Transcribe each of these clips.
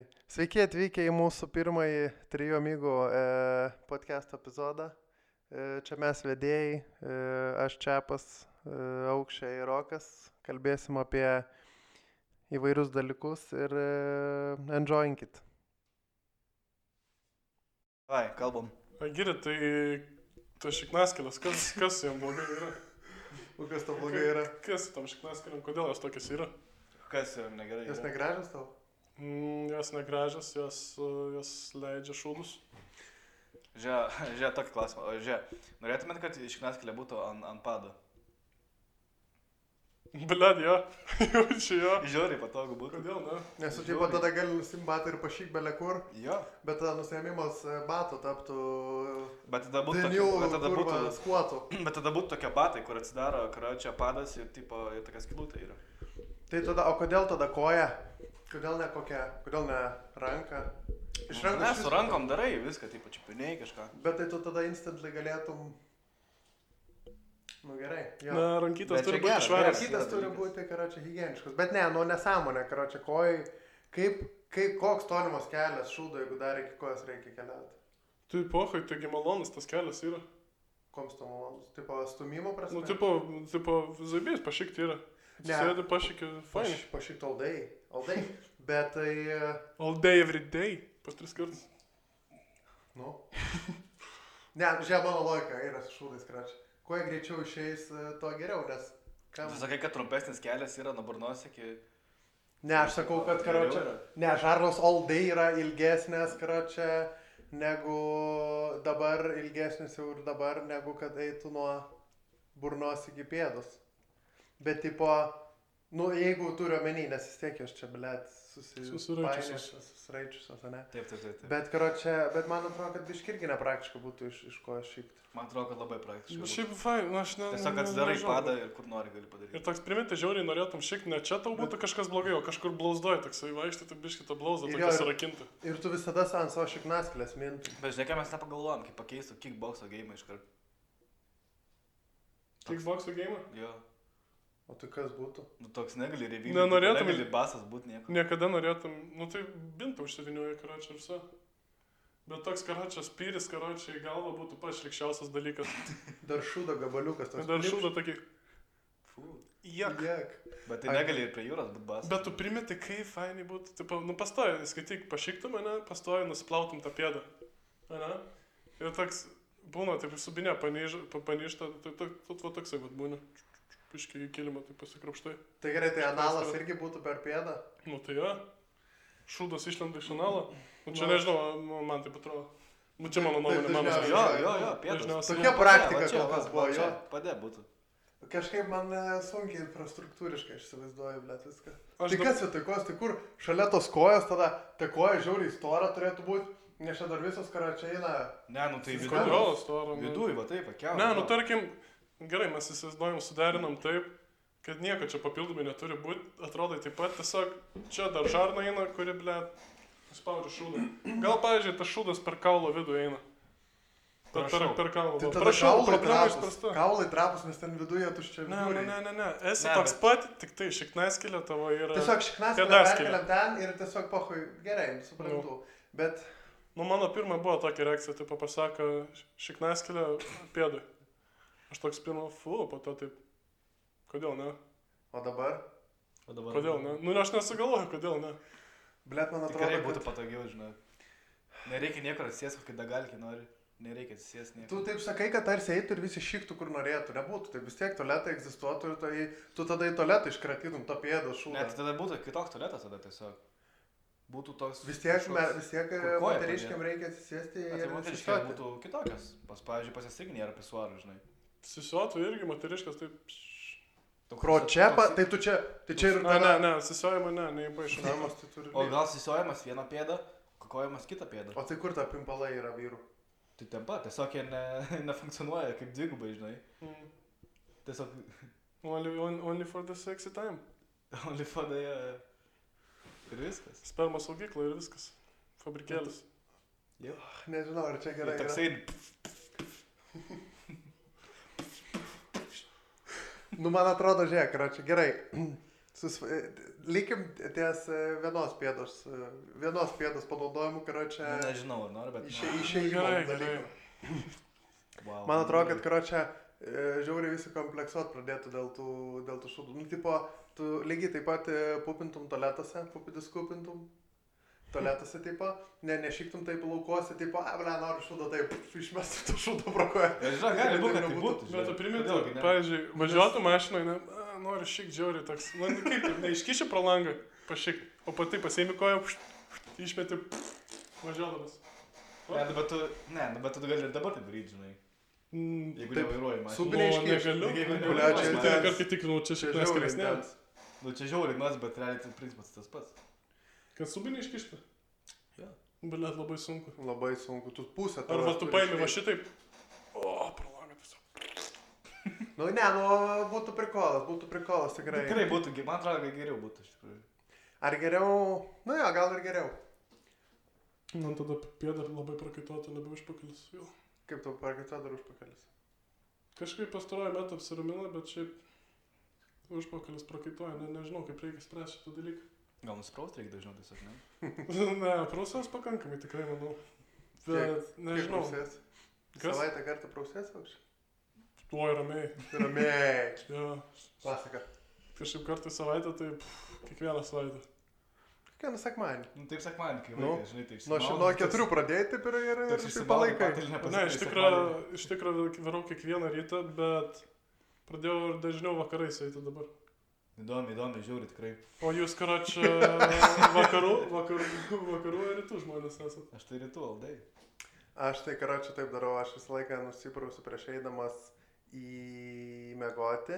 Sveiki atvykę į mūsų pirmąjį Trijų amigų podcast epizodą. Čia mes vedėjai, aš Čiapas, Aukščiai ir Rokas. Kalbėsim apie įvairius dalykus ir enjoyinkit. Ai, kalbam. Geri, tai šiknaskėlės, kas jam blogai yra? O kas tau blogai yra? Kas tam šiknaskėlėm, kodėl jos tokias yra? Kas jam negerai? Jos negražios tau? Jos negražios, jos leidžia šūdus. Žiūrė, tokį klausimą. Norėtumėt, kad šiknaskėlė būtų ant pado? Bled, jo. Jaučiu jo. Žiūrėi, patogu būtų. Kodėl, ne? Nes tu tipo tada gali nusimti batą ir pašyk belė kur, Jo. bet tada nusiėmimas batų taptų Bet tada būtų skuotų. Bet tada būtų tokie batai, kur atsidaro karočią padas ir tipo ir tokia skylutė yra. Tai tada, o kodėl tada koja? Kodėl ne kokia? Kodėl ne ranka? Iš rankos. Ne, su rankom darai viską, tipo čiupiniai kažką. Bet tai tu tada instantly galėtum. Nu gerai. Jo. Na, rankytas Bet turi čia būti geras, švarios. Rankytas turi būti, karočią, higieniškos. Bet ne, nu nesąmonė, karočią, kojai. Koks tolimas kelias šūdo, jeigu dar iki kojos reikia keliauti? Tai pohai, taigi malonus tas kelias yra. Koms to malonus? Tipo stumimo prasme? Nu, tipo, zabės pašykti yra. Ne. Sėdi pašykti, fine. Pašykt all day. All day. Bet tai... All day, every day. Pas 3 kartus. Nu. Ne, žiūrėk, mano logika yra su šūdais, karočią. Kuo jie greičiau išeis, to geriau, nes... Tu sakai, kad trumpesnis kelias yra nuo burnos iki... Ne, aš sakau, kad, karočią... Ne, žarnos all day yra ilgesnės, karočią, negu dabar, ilgesnės jau ir dabar, negu kad eitų nuo burnos iki pėdos. Bet, tipo, nu, jeigu turiu omeny, nes vis tiek jos čia, blėt, susiraičiusios, ne? Taip. Bet, karočią, bet man atrodo, kad biški irgi nepraktiška būtų iš ko šykti. Man atrodo, kad labai praktiškai. Bet šiaip fine, aš ne... Tiesiog atsidarai padą ir kur nori gali padaryti. Ir toks priminti žiauriai norėtum šikti, ne čia tau būtų kažkas blogai, o kažkur blauzdoji, toksai vaikštai, tai biški tą blauzdą Ir tokia jo, surakinti. Ir tu visada ant savo šiknaskėlės mintum. Bet žinai, ką mes nepagalvojom, kaip pakeistų kickboxo game iškart. Kickboxo game? Jo. O tai kas būtų? Nu toks negali revykti. Nenorėtum- Negali basas būti nieko. Niekada norėtum, nu tai bintą užsivinioja karočią ir viso. Bet toks karočias pyris, karočiai į galvą būtų pats šlikščiausias dalykas. Dar šūdo gabaliukas. toks Dar klipš. šūda tokį, Fū. jak. Jek. Bet tai negali ir prie jūros būti basas. Bet tu primeti, kaip fainai būtų, tipo, nu pastoji, skaityk, pašyktum mane, pastoji, nusiplautum tą pėdą. Ane? Ir toks, būna, taip subinė, panyšta, tai toksai vat būna. Piškiai į kilimą, tai pasikrapštai. Tai gerai, tai analas irgi būtų per pėdą. Nu tai jo, šūdas išlenda iš analo. Nu čia Nu, nežinau, nu, man taip atrodo. Nu čia mano nuomonė, Taip, mano dažniausiai- Jo, pėdas. Dažniausiai. Tokia praktika kol kas buvo, jo. Padė būtų. Kažkaip man sunkiai infrastruktūriškai įsivaizduoju, blėt, viską. Aš Tai kas vietoj kojos, tai kur šalia tos kojos tada, ta koja žiauriai stora turėtų būti, nes čia dar visos karočiai eina. Ne, nu tai Kodėl? viduj. Storo. Viduj, va taip, pakiau. Ne, nu tarkim, gerai, mes įsivaizduojam, suderinam taip, kad nieko čia papildomai neturi būti. Atrodo taip pat, tiesiog čia dar žarna eina, kuri, blėt, spaudžia šūdą. Gal, pavyzdžiui, tas šūdas per kaulo vidų eina. Per kaulo. Tai tada Prašau, kaulai problema trapus. išspręsta. Kaulai trapus, nes ten viduje tuščia viduriai. Ne. Esi Ne, toks bet- pat, tik tai šiknaskėlė tavo yra. Tiesiog šiknaskėlę Pėdaskėlė. perkeliam ten ir tiesiog pohui, gerai, suprantu. Bet, Nu, mano pirma buvo tokia reakcija, tipo pasako šiknaskėlė pėdui. Aš toks pirma, po to taip. Kodėl ne? o dabar, O dabar. Kodėl ne? Nu, aš nesugalvoju, kodėl ne. blėt, man Tikrai atrodo, būtų kad... patogiau, žinai. Nereikia niekur atsisės, kai dagalkį nori. Nereikia atsisės niekur. Tu taip sakai, kad tarsi eitų ir visi šiktų, kur norėtų. Nebūtų. Tai vis tiek tualetai egzistuotų ir tai, tu tada į tualetą iškratytum tą pėdą šūdą. Net tada būtų kitoks tualetas tada tiesiog. Būtų toks... Vis tiek, kažkoks- vis tiek kur koja moteriškiam padėt. reikia atsisėsti Bet tai ir moteriškai susistoti. būtų kitokios. Pavyzdžiui, pasisirginė yra pisuarų, žinai. Sisuotų irgi moteriškas, taip. Toks- Kročepa, toks- tai tu čia, tai čia ir Ne, sisuojama, neįpaišau. Namas, tai turi... O gal sisiojamas vieną pėdą, kokojamas kitą pėdą. O tai kur ta pimpalai yra vyrų? Tai ten pat, tiesiog jie nefunkcionuoja kaip dvigubai, žinai. Tiesiog Only for the sexy time. olifodai ir viskas. Sperma saugykla ir viskas. Fabrikėlis. Nežinau, ar čia Ir gerai. toksai... Nu, man atrodo, žiūrėk, yra čia gerai. Likim ties vienos pėdos panaudojimu, karočią, Nežinau, ar nori, bet... išėjimo Gerai, dalykų. Wow. Man atrodo, kad, karočią, žiauriai visi kompleksuot pradėtų dėl tų šūdų. Nu, tipo, tu lygiai taip pat pupintum tualetuose, pupidis kupintum. Tualetuose, tipo, nešyktum taip laukuose, tipo, noriu šūdą, taip, išmestum tą šūdą pro koją. Žinau, gali būti, kad tai būtų. Bet tu primintų, pavyzdžiui, važiuotų mašinoje, noriu šiek džiauriai toks, kaip taip, neiškiši pro langą, pašik, o pati pasiemi koją, išmeti, važiuodamas. Bet tu gali ir dabar tai daryti, žinai. Jeigu nevairuoji mašiną. Subiniai iškiši. Negaliu. Karkai tikrinau, čia šiek tiek skaresnė. Nu, čia žiauriai nas, bet realiai tai principas tas pats. Kad subiniai iškišti? Jo. Blet, labai sunku. Labai sunku, tu pusę. Arba tu paimi va šitaip. O, pro langą tiesiog. Nu, būtų prikolas, tikrai. Tikrai būtų, man atrodo, kad geriau būtų, iš tikrųjų. Ar geriau? Nu jo, gal ir geriau. Man tada pėda labai prakaituotų, nebe užpakalis. Vėl. Kaip tau prakaituotų dar užpakalis? Kažkaip pastaruoju metu apsiramina, bet šiaip užpakalis prakaituoja. Nežinau, kaip reikia spręsti šitą dalyką. Gal nuspraust reikia dažniau tiesiog, ne? Ne, prausas pakankamai tikrai, manau. Bet nežinau. Kas? Kas? Savaitę kartą prausės aukščiai? Tuo ramiai. Ramiai. Jo. Klasika. Kažkaip kartą į savaitę, tai kiekvieną savaitę. Kiekvieną sekmanį. Nu, taip sekmanį, kai Nu, vaikai, žinai, taip. Nuo 4 pradėjai taip ir taip palaikai. Ne, iš tikrųjų varau kiekvieną rytą, bet pradėjau ir dažniau vakarais eiti dabar. Įdomi, žiauri tikrai. O jūs, karočią, vakarų ir rytų žmonės esate? Aš tai rytų aldai. Aš tai, karočią, taip darau, aš visą laiką nusiprausiu prieš eidamas į mėgoti,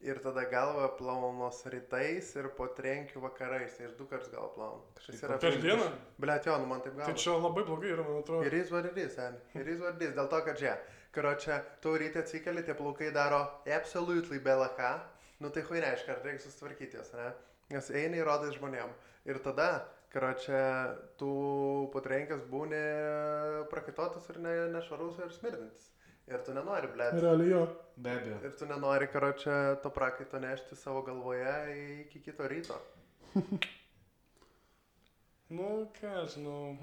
ir tada galvą plaunus rytais ir po trenkių vakarais, tai aš 2 kartus galvą plaunu. Per dieną? Blet, jo, nu man taip galva. Tai čia labai blogai yra, man atrodo. Ir jis vardys, dėl to, kad čia, karočią, tu ryte atsikeli, tie plaukai daro absolutely belaką. Nu tai hui reiškia, ar reikia susitvarkyti jas, ne? Nes eini ir rodai žmonėm. Ir tada, karočią, tu patrenkęs būni prakaituotas ir nešvarus ir smirdintis. Ir tu nenori, blėt. Realiai jo. Be abejo. Ir tu nenori, karočią, to prakaito nešti savo galvoje iki kito ryto. Nu, ką žinau.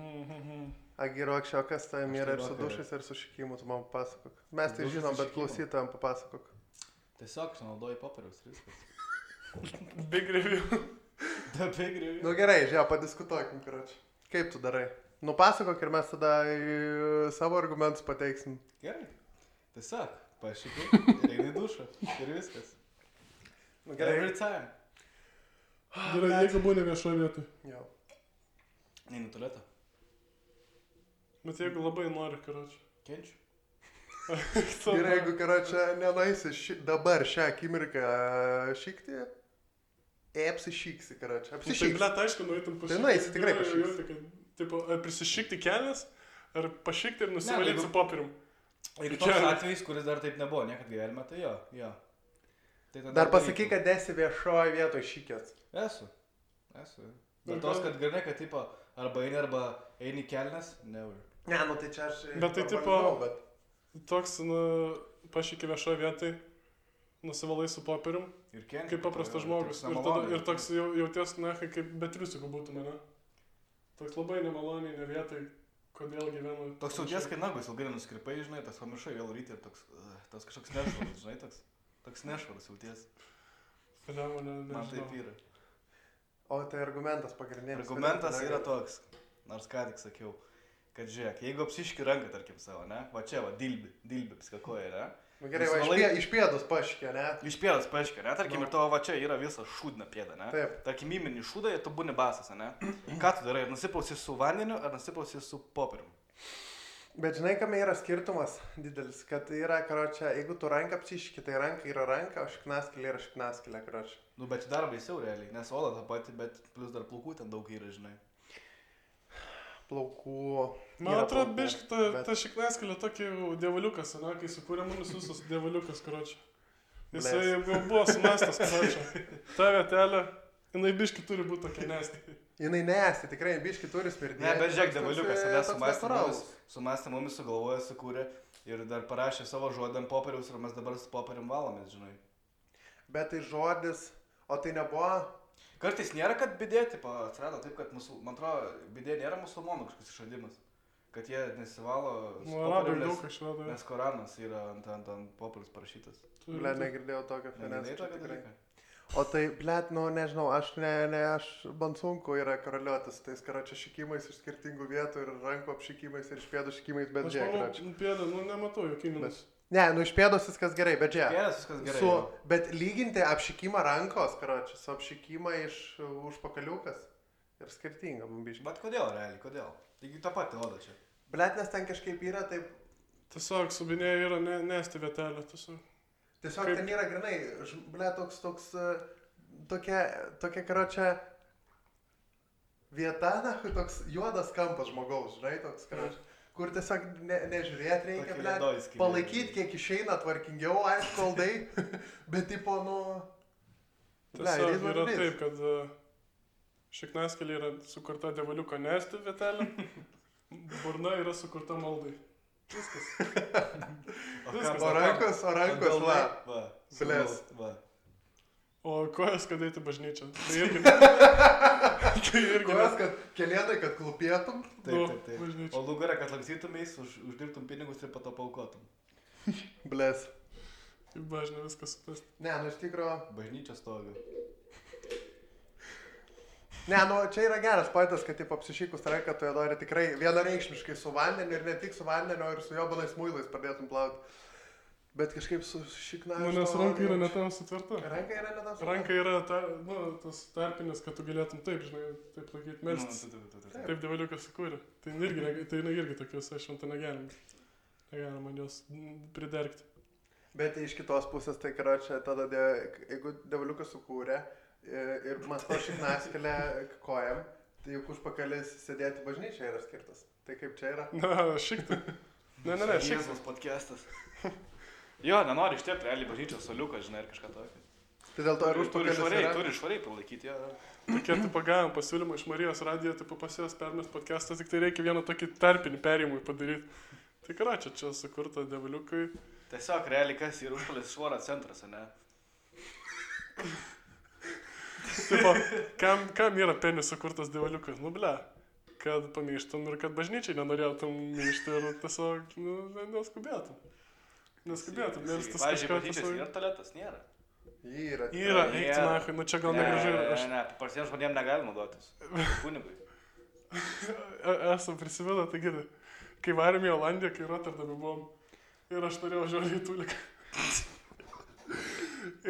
Agirokščio, kas tam yra ir su vakare. dušais, ir su šikimu, tu man papasakok. Mes tai Dušas žinom, ir bet šikimu. klausytojam papasakok. Tiesiog išnaudoji popieriaus ir viskas. Big review. Big review. Nu gerai, žiūrėjau, padiskutuokim, karočią. Kaip tu darai? Nupasakok ir mes tada savo argumentus pateiksim. Gerai. Tiesiog, pašikai ir eini į dušą. Ir viskas. Nu Every time. Gerai, jeigu būni viešoje vietoje. Jo. Neinu tualetą. Bet jeigu labai nori, karočią. Kenčiu. Ir jeigu, karočią, nenaisi dabar šią akimirką šykti, apsišyksi, karočią. Tai Apsišyksi. blet, aišku, nueitum Tai nueisi, tikrai pašykti. Tipo, ar prisišykti kelias, ar pašykti ir nusivalyti jeigu- su popierium. Ir Čia- toks atvejis, kuris dar taip nebuvo niekad gyvenime, tai jo. Tai tada Dar pasakyk, darytum. kad esi viešoje vietoje šykęs. Esu. Bet tos, kad grinai, kad tipo, arba eini kelnes, never. Ne, nu tai čia aš... Bet tai normalizavau, tipo- Toks, pašyki viešoje vietoje, nusivalai su popierium, Ir kenčiu. kaip paprastas žmogus. Ir toks jauties, na, kaip betriusikų būtų mane. Toks labai nemaloniai, ne vietoj, kodėl gyvenu. Toks jauties, kai nagus ilgai nuskripai, žinai, tas pamiršai vėl ryti ir toks kažkoks nešvarus, žinai, toks nešvarus jauties. Man taip yra. O tai argumentas pagrindinis. Argumentas yra toks, nors ką tik sakiau, kad žiūrėk, jeigu apsiški ranką, tarkim, savo, ne, va čia, va, dilbi, piskakoja, ne. Nu gerai, va, iš pėdus paškė, ne? Iš pėdos paaiškia, ne, tarkim, ir tavo va čia yra visa šūdna pėda, ne. Taip. Tarkim, įmini šūdą ir tu būni basas, ne. Ką tu darai, ar nusiprausi su vandeniu, ar nusiprausi su popierium? Bet žinai, kame yra skirtumas didelis, kad yra, karočią, jeigu tu ranką apsiški, tai ranka yra ranka, o šiknaskilė yra šiknaskilė, karočią. Nu, bet dar baisiau realiai, nes oda tą patį, bet plus dar plaukų ten daug yra, žinai. Plaukų. Man yra atrodo, plaukų, biški, bet- ta šiknaskilė tokia dievaliukas, ne, kai sukūrė mumis visus dievaliukas, karočią. Jisai Bles. jau buvo sumestas, karočią. Ta vietelė, jinai biški turi būti tokia nesti. Jinai nesi, tikrai biški turi smirdėti. Ne, bet žiūrėk, devaliukas, ne, natūralus. sumastė mumis, sugalvoja, sukūrė ir dar parašė savo žodį ant popieriaus ir mes dabar su popierium valomės, žinai. Bet tai žodis, O tai nebuvo... Kartais nėra, kad bidė, tipo, atsirado taip, kad man atrodo, bidė nėra musulmonų kažkoks išradimas. Kad jie nesivalo... Arabai daug išrado. Nes Koranas yra ant popieriaus parašytas. Ble, negirdėjau tokio Negirdėjai tokio dalyką? O tai, blet, nu, nežinau, aš man sunku yra karaliuotis tais karočią šikimais iš skirtingų vietų ir rankų apšikimais ir iš pėdų šikimais, bet aš manau, pėdą, nu, nematau jokių minus. Ne, nu, iš pėdos viskas gerai, bet žiūrėk. Pėdas viskas gerai. Bet lyginti apšikimą rankos, karočią, su apšikimą iš užpakaliukas ir skirtinga, bambiškai. Bet kodėl, realiai, kodėl? Taigi tą patį odą čia. Blet, nes ten kažkaip yra taip... Tiesiog subinėje yra nesti vietelė, tiesiog. Tiesiog kaip... ten yra grinai, ble, tokia karočią vieta, na, toks juodas kampas žmogaus, žinai, toks karočią. Kur tiesiog nežiūrėti reikia, ble, palaikyti, kiek išeina tvarkingiau, aišku, aldai, bet tipo, nu... Tiesiog yra taip, kad šiknaskelė yra sukurta devaliuko nesti vietelė, burna yra sukurta maldai. Viskas. O rankos, va. Blės. O kojas, kad eiti bažnyčią. Tai irgi. Kojas, kad kelėtai, kad klupėtum. Taip. O lugarą, kad lanksytumės, uždirbtum pinigus ir po to paukotum. Blės. Kaip bažnė viskas suprast. Ne, nu iš tikro... Bažnyčia stovi. Ne, nu čia yra geras pointas, kad taip apsišykus ranką tu ją nori tikrai vienareikšmiškai su vandeniu ir ne tik su vandeniu, ir su jobanais muilais pradėtum plauti. Bet kažkaip su šikna... Nu, nes ranka yra netam sutverta. Ranka yra netam sutverta. Ranka yra tas tarpinis, kad tu galėtum taip, žinai, taip laikyti melstis. Taip devaliukas sukūrė. Tai irgi tokius, aš šventą negalim. Negalim man jos pridergti. Bet iš kitos pusės, tai karočią, tada, jeigu devaliukas sukūrė ir masto šiknaskelę kojam, tai juk užpakalis sėdėti bažnyčia yra skirtas. Tai kaip čia yra? Na, šiktai. Ne, šiktai. Jėzus podcastas. Jo, nenori ištiepti realiai bažnyčios soliuką, žinai, ir kažką tokio. Tai dėl to ir užpakalis yra? Turi švariai palaikyti, jo. Tokie, tipo, gavom pasiūlymą iš Marijos radijo, tipo, pas jos permest podcastą, tik tai reikia vieną tokį tarpinį perėjimui padaryti. Tai karočią, čia sukurta devaliukai. Tiesiog realiai kas yra užpakalis švaro centras, ne? Tipo, kam yra penis sukurtas devaliukas? Nu, ble, kad pamyštum ir kad bažnyčiai nenorėtum myšti ir tiesiog, nu, neskubėtum. Neskubėtum, nes tas kažką... Pavyzdžiui, bažnyčios yra tualetas, nėra. Yra, eik, tu, nu čia gal negražu yra. Ne, paprastiems žmonėms negali naudotis. Kunigui. Esam prisimena, tai girdai. Kai varėm į Olandiją, kai Rotterdame buvom, ir aš norėjau žiūrėti į tuliką.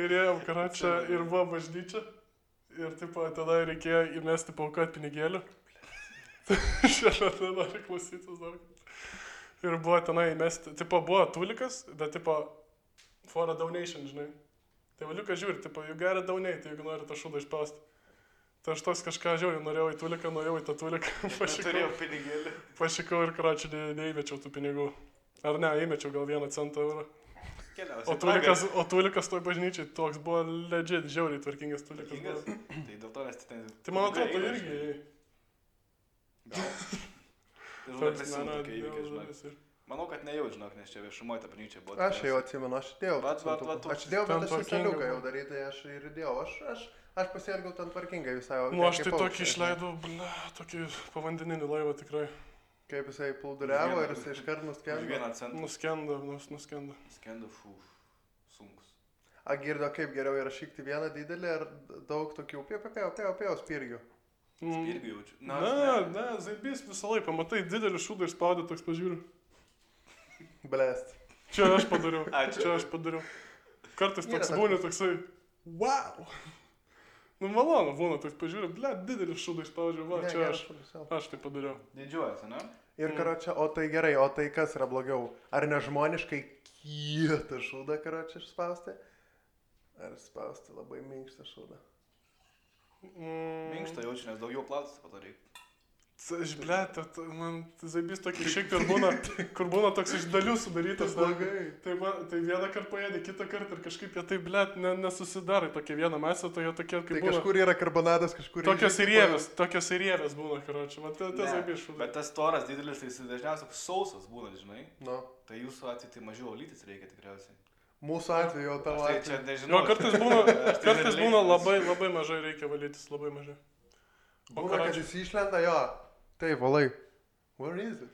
Ir ėjom karočią ir buvo bažnyčia. Ir tipo, tada reikėjo įmesti paukot pinigėlių. Šiandien nori klausytis dar. Ir buvo tenai įmesti, tipo, buvo tulikas, bet tipo, for a donation, žinai. Tai valiukas žiūri, tipo, you gotta donate, jeigu nori tą šūdą išpausti. Tai aš tos kažką žiūrėjau, norėjau į tuliką, nuėjau į tą tuliką. Turėjau pinigėlį. Pašikau ir karočią neįmečiau tų pinigų. Ar ne, įmečiau gal 1 centą eurą. O tulikas toj bažnyčiai toks buvo legit, žiauriai tvarkingas tulikas. Tvarkingas? Tai dėl to nes ten... Tai man atrodo, tai irgi... Gal. Manau, kad nejau, žinok, nes čia viešumoje ta bažnyčia buvo. Aš jau atsimenu, aš įdėjau. Aš įdėjau, bet aš saliuką jau daryti, aš ir įdėjau. Aš pasielgiau ten tvarkingai visai. Nu, aš tai tokį išleidau, tokį povandeninį laivą tikrai. Kaip jisai plūduriavo ir jisai iškart nuskendo. Nuskendo. Skendo, sunkus. A girdo, kaip geriau yra šikti vieną didelį ar daug tokių pėjo spirgių? Spirgių jaučiu. Ne, zaibys visą laiką, pamatai, didelį šūdą išspaudė, toks pažiūriu. Blest. Čia aš padariau. Kartais toks būna toksai, wow. Nu, malonu būna, toks pažiūriu, didelį šūdą išspaudžiu, va, čia aš tai padariau. Didžiuojasi, ne? Ir karočią, o tai gerai, o tai kas yra blogiau? Ar nežmoniškai kietą šūdą karočią išspausti? Ar spausti labai minkštą šūdą? Minkštą jaučiu, nes daugiau plautis padarai. Aš, man zaibys tokį šiek tiek būna, kur būna toks iš dalių sudarytas. Tai vieną kartą paėdė, kitą kartą ir kažkaip jie taip, nesusidarai tokia viena masė, tai jie tokie kaip būna. Tai kažkur yra karbonadas, kažkur yra... Tokios įrievės būna, karočią, man tai zaibys šūdas. Bet tas toras didelis, tai jis dažniausiai sausas būna, žinai. No. Tai jūsų atveju tai mažiau olytis reikia tikriausiai. Mūsų atveju, tavo Tai čia atveju. nežinau. Jo, kartais būna labai mažai reikia valytis, labai mažai. Būna, kad jis išlenda, jo. Taip, valai. Where is it?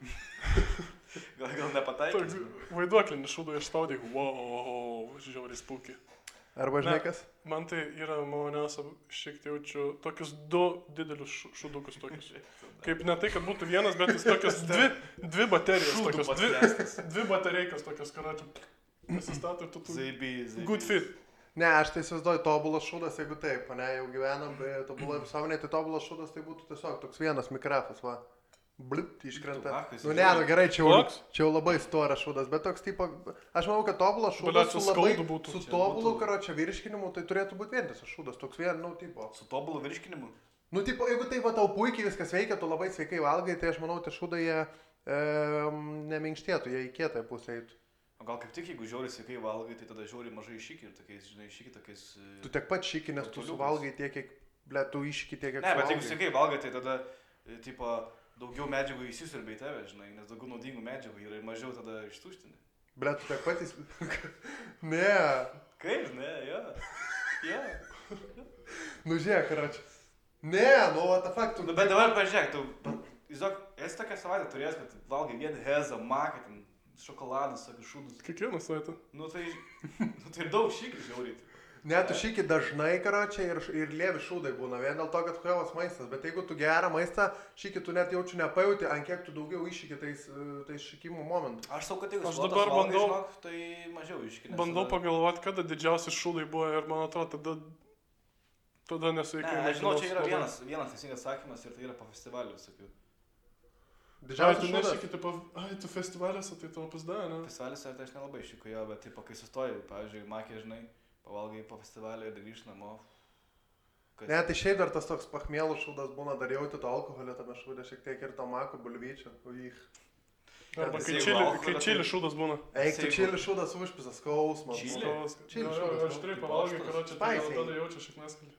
Gal nepataikys. Vaiduoklinį šūdą išspaudė, wow, žiauriai spūkiai. Arba žinai kas? Man tai yra maloniausia, šiek tiek jaučiu tokius 2 didelius šūdukus tokius. Kaip ne tai, kad būtų vienas, bet jis tokias 2 baterijos tokios. 2 batareikas tokios, karočią. Pasistato ir tu tu. Good fit. Ne, aš tai įsivaizduoju tobulas šūdas, jeigu taip, ne, jau gyvenam, tobulai visuomenėje, tai tobulas šūdas tai būtų tiesiog toks vienas mikrafas, va. Blipt, iškrenta. Nu ne, nu gerai, čia jau labai storas šūdas, bet toks tipo, aš manau, kad tobulas šūdas su labai, su tobulu, karočią, virškinimu, tai turėtų būti vientisas šūdas, toks vien, nu, tipo. Su tobulu virškinimu? Nu, tipo, jeigu tai va tau puikiai viskas veikia, tu labai sveikai valgai, tai aš manau, tie šūdai jie neminkštėtų, jie į kietąją pusę eitų. O gal kaip tik, jeigu žiauriai sveikai valgai, tai tada žiauriai mažai iššyki ir tokiais, žinai, iššyki tokiais... Tu tiek pat šyki, nes tu suvalgai tiek, kiek, ble, tu iššyki tiek, kiek suvalgai. Ne, bet jeigu sveikai valgai, tai tada, tipo, daugiau medžiagų įsisiurbia į tave, žinai, nes daugiau naudingų medžiagų yra ir mažiau tada ištuštini. Ble, tu tiek pat Ne. Kaip, ne, jo. Jo. Nu, žiūrėk, karočią. Ne, nu, what the fuck, tu... Nu, bet dabar pažiūrėk, tu, įsivaizduok, esi tokią savaitę turėjęs, kad valgai vien hezą, maką, ten, šokoladus, tokius šūdus. Kiekvieną savaitę. Nu tai ir daug šykių žiauriai. Ne, tu šyki dažnai, karočią, ir lievi šūdai būna, vien dėl to, kad huevas maistas, bet jeigu tu gerą maistą šyki, tu net jaučiu nepajauti, ant kiek tu daugiau iššyki tais šykimų momentų. Aš sau, kad jeigu aš dabar bandau, žinok, tai mažiau iššyki. Bandau pagalvoti, kada didžiausi šūdai buvo ir man atrodo, tada nesveikai. Ne, aš žinau, čia yra vienas teisingas sakymas ir tai yra po festivalių visokių. Didžiausias šūdas. Ai, tu nešyki, tipo, tu festivaliuose, tai tavo pasda, ne? Festivaliuose tai aš nelabai šyku jo, bet tipo, kai sustoju, pavyzdžiui, makė, žinai, pavalgai po festivalio ir grįžt namo. Ne, tai šiaip dar tas toks pachmielų šūdas būna, dar jauti to alkoholio tame šūdė, šiek tiek ir to mako bulvyčio. Arba kai čili šūdas būna. Eik, tu čili šūdas užpisas, skausmas. Čili šūdas. Aš turiu pavalgai, karočią, tada jaučiu šiek neskalį.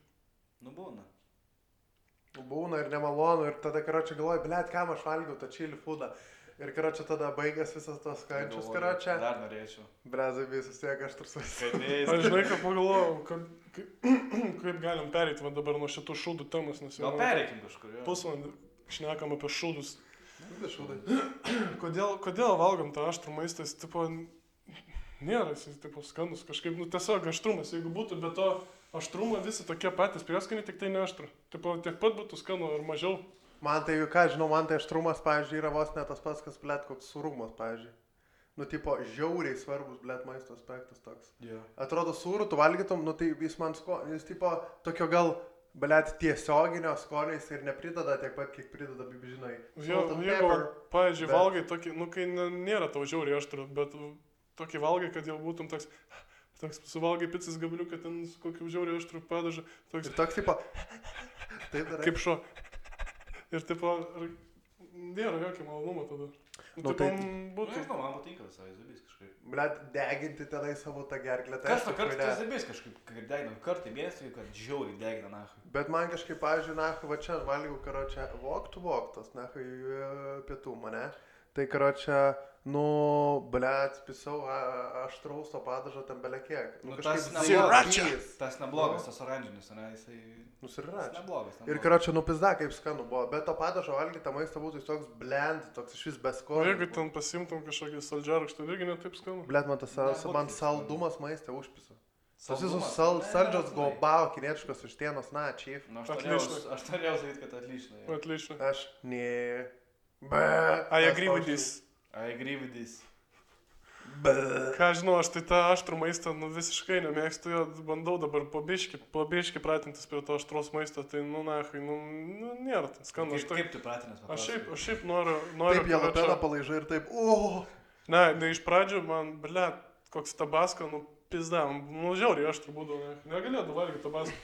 Nu būna. Būna ir nemalonu ir tada, karočią, galvoju, blėt, kam aš valgiau tą čili foodą. Ir, karočią, tada baigęs visas tos kančius, karočią. Dar norėčiau. Brezai visus tiek aš trusus. Aš žinai, ką pagalvojau, kaip galim pereiti va dabar nuo šitų šūdų temos, nes jau... Gal pereikim kažkur, jo. Pusvalandį šnekam apie šūdus. Šūdai. Kodėl valgom tą aštrų maistą, jis, tipo, nėra, jis, tipo, skanus kažkaip, nu, tiesiog aštrumas, jeigu būtų be to aštrumo visi tokie patys prieskoniai, tik tai ne aštru. Tipo, tiek pat būtų skanu ar mažiau. Man tai, ką žinau, man tai aštrumas, pavyzdžiui, yra vos ne tas pats, kas, blėt, koks sūrumas, pavyzdžiui. Nu, tipo, žiauriai svarbus, blėt, maisto aspektas toks. Yeah. Atrodo, sūrų tu valgytum, nu, tai jis man jis, tipo, tokio gal, blėt, tiesioginio skoniais ir neprideda tiek pat, kiek prideda, žinai. Jeigu, pavyzdžiui, valgai tokį, nu, kai nėra tau žiauriai aštru, bet tokį valgai, kad jau būtum toks suvalgai pizzas gabaliuką, ten su kokiu žiauriai aštru padažą. Ir toks, tipo, taip darai. Kaip šuo. Ir, tipo, nėra jokio malonumo tada. Nu, tipo, tai... būtų... Nežinau, man patinka visai zabys kažkaip. Blet, deginti tenai savo tą gerklę. Kas to kartą tas zabys kažkaip, kai degina, kartą mėnesį, kad žiauriai degina, nahui. Bet man kažkaip, pavyzdžiui, nahui, va čia valgiau, karočią, voktas, nahui, pietų mane. Tai, karočią, nu, blet, pisau aštraus to padažo ten belekiek. Nu, tas neblogas, tas oranžinis, ne, jisai... Nusiračia. Neblogas. Ir, karočią, nu, pizda, kaip skanu buvo. Bet to padažo valgyti maistą būtų toks blend, toks iš vis beskonio. Jeigu ten pasimtum kažkokį saldžiarūkštą, irgi netaip skanu. Blet, man saldumas maistą užpisa. Tas visus saldžios gobao, kinietiškos vištienos, na, chief. Nu, aš norėjau sakyti, kad atlyšna. Atlyšna. Aš, ne. I agree with this. Ką žinau, aš tai tą aštrų maistą, nu, visiškai nemėgstu jo, bandau dabar po biški pratintis prie to aštros maisto, tai, nu, nahui, nu, nėra ten skanu. Kaip tu pratinės? Aš šiaip noriu... Taip, jalapeną palaižai ir taip, Ne, iš pradžių man, blet, koks tabasko, nu, pizda, nu, žiauriai aštrų būdavo, negalėjau valgyti tabasko.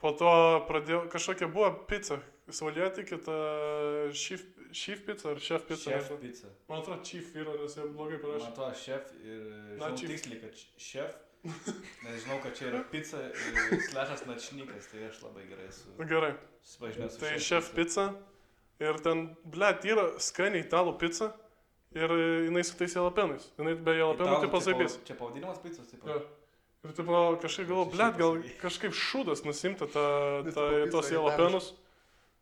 Po to pradėjau, kažkokia buvo pizza, saulėtikė, ta Chief pizza ar Chef pizza? Chef pizza. Man atrodo, Chief yra, nes jie blogai parašė. Man atrodo, Chef ir žinau tiksliai, kad Chef, nes žinau, kad čia yra pizza ir slešas načnykas, tai aš labai gerai esu. Gerai. Susipažinęs su Tai Chef pizza ir ten, blet, yra skaniai italų pizza ir jinai su tais jalapenais. Jinai be jalapenų tipo zaibys. Čia pavadinimas picos, taip. Ja. Ir tipo kažkaip galvoju, blėt, gal kažkaip šūdas nusimti tos jalapenus.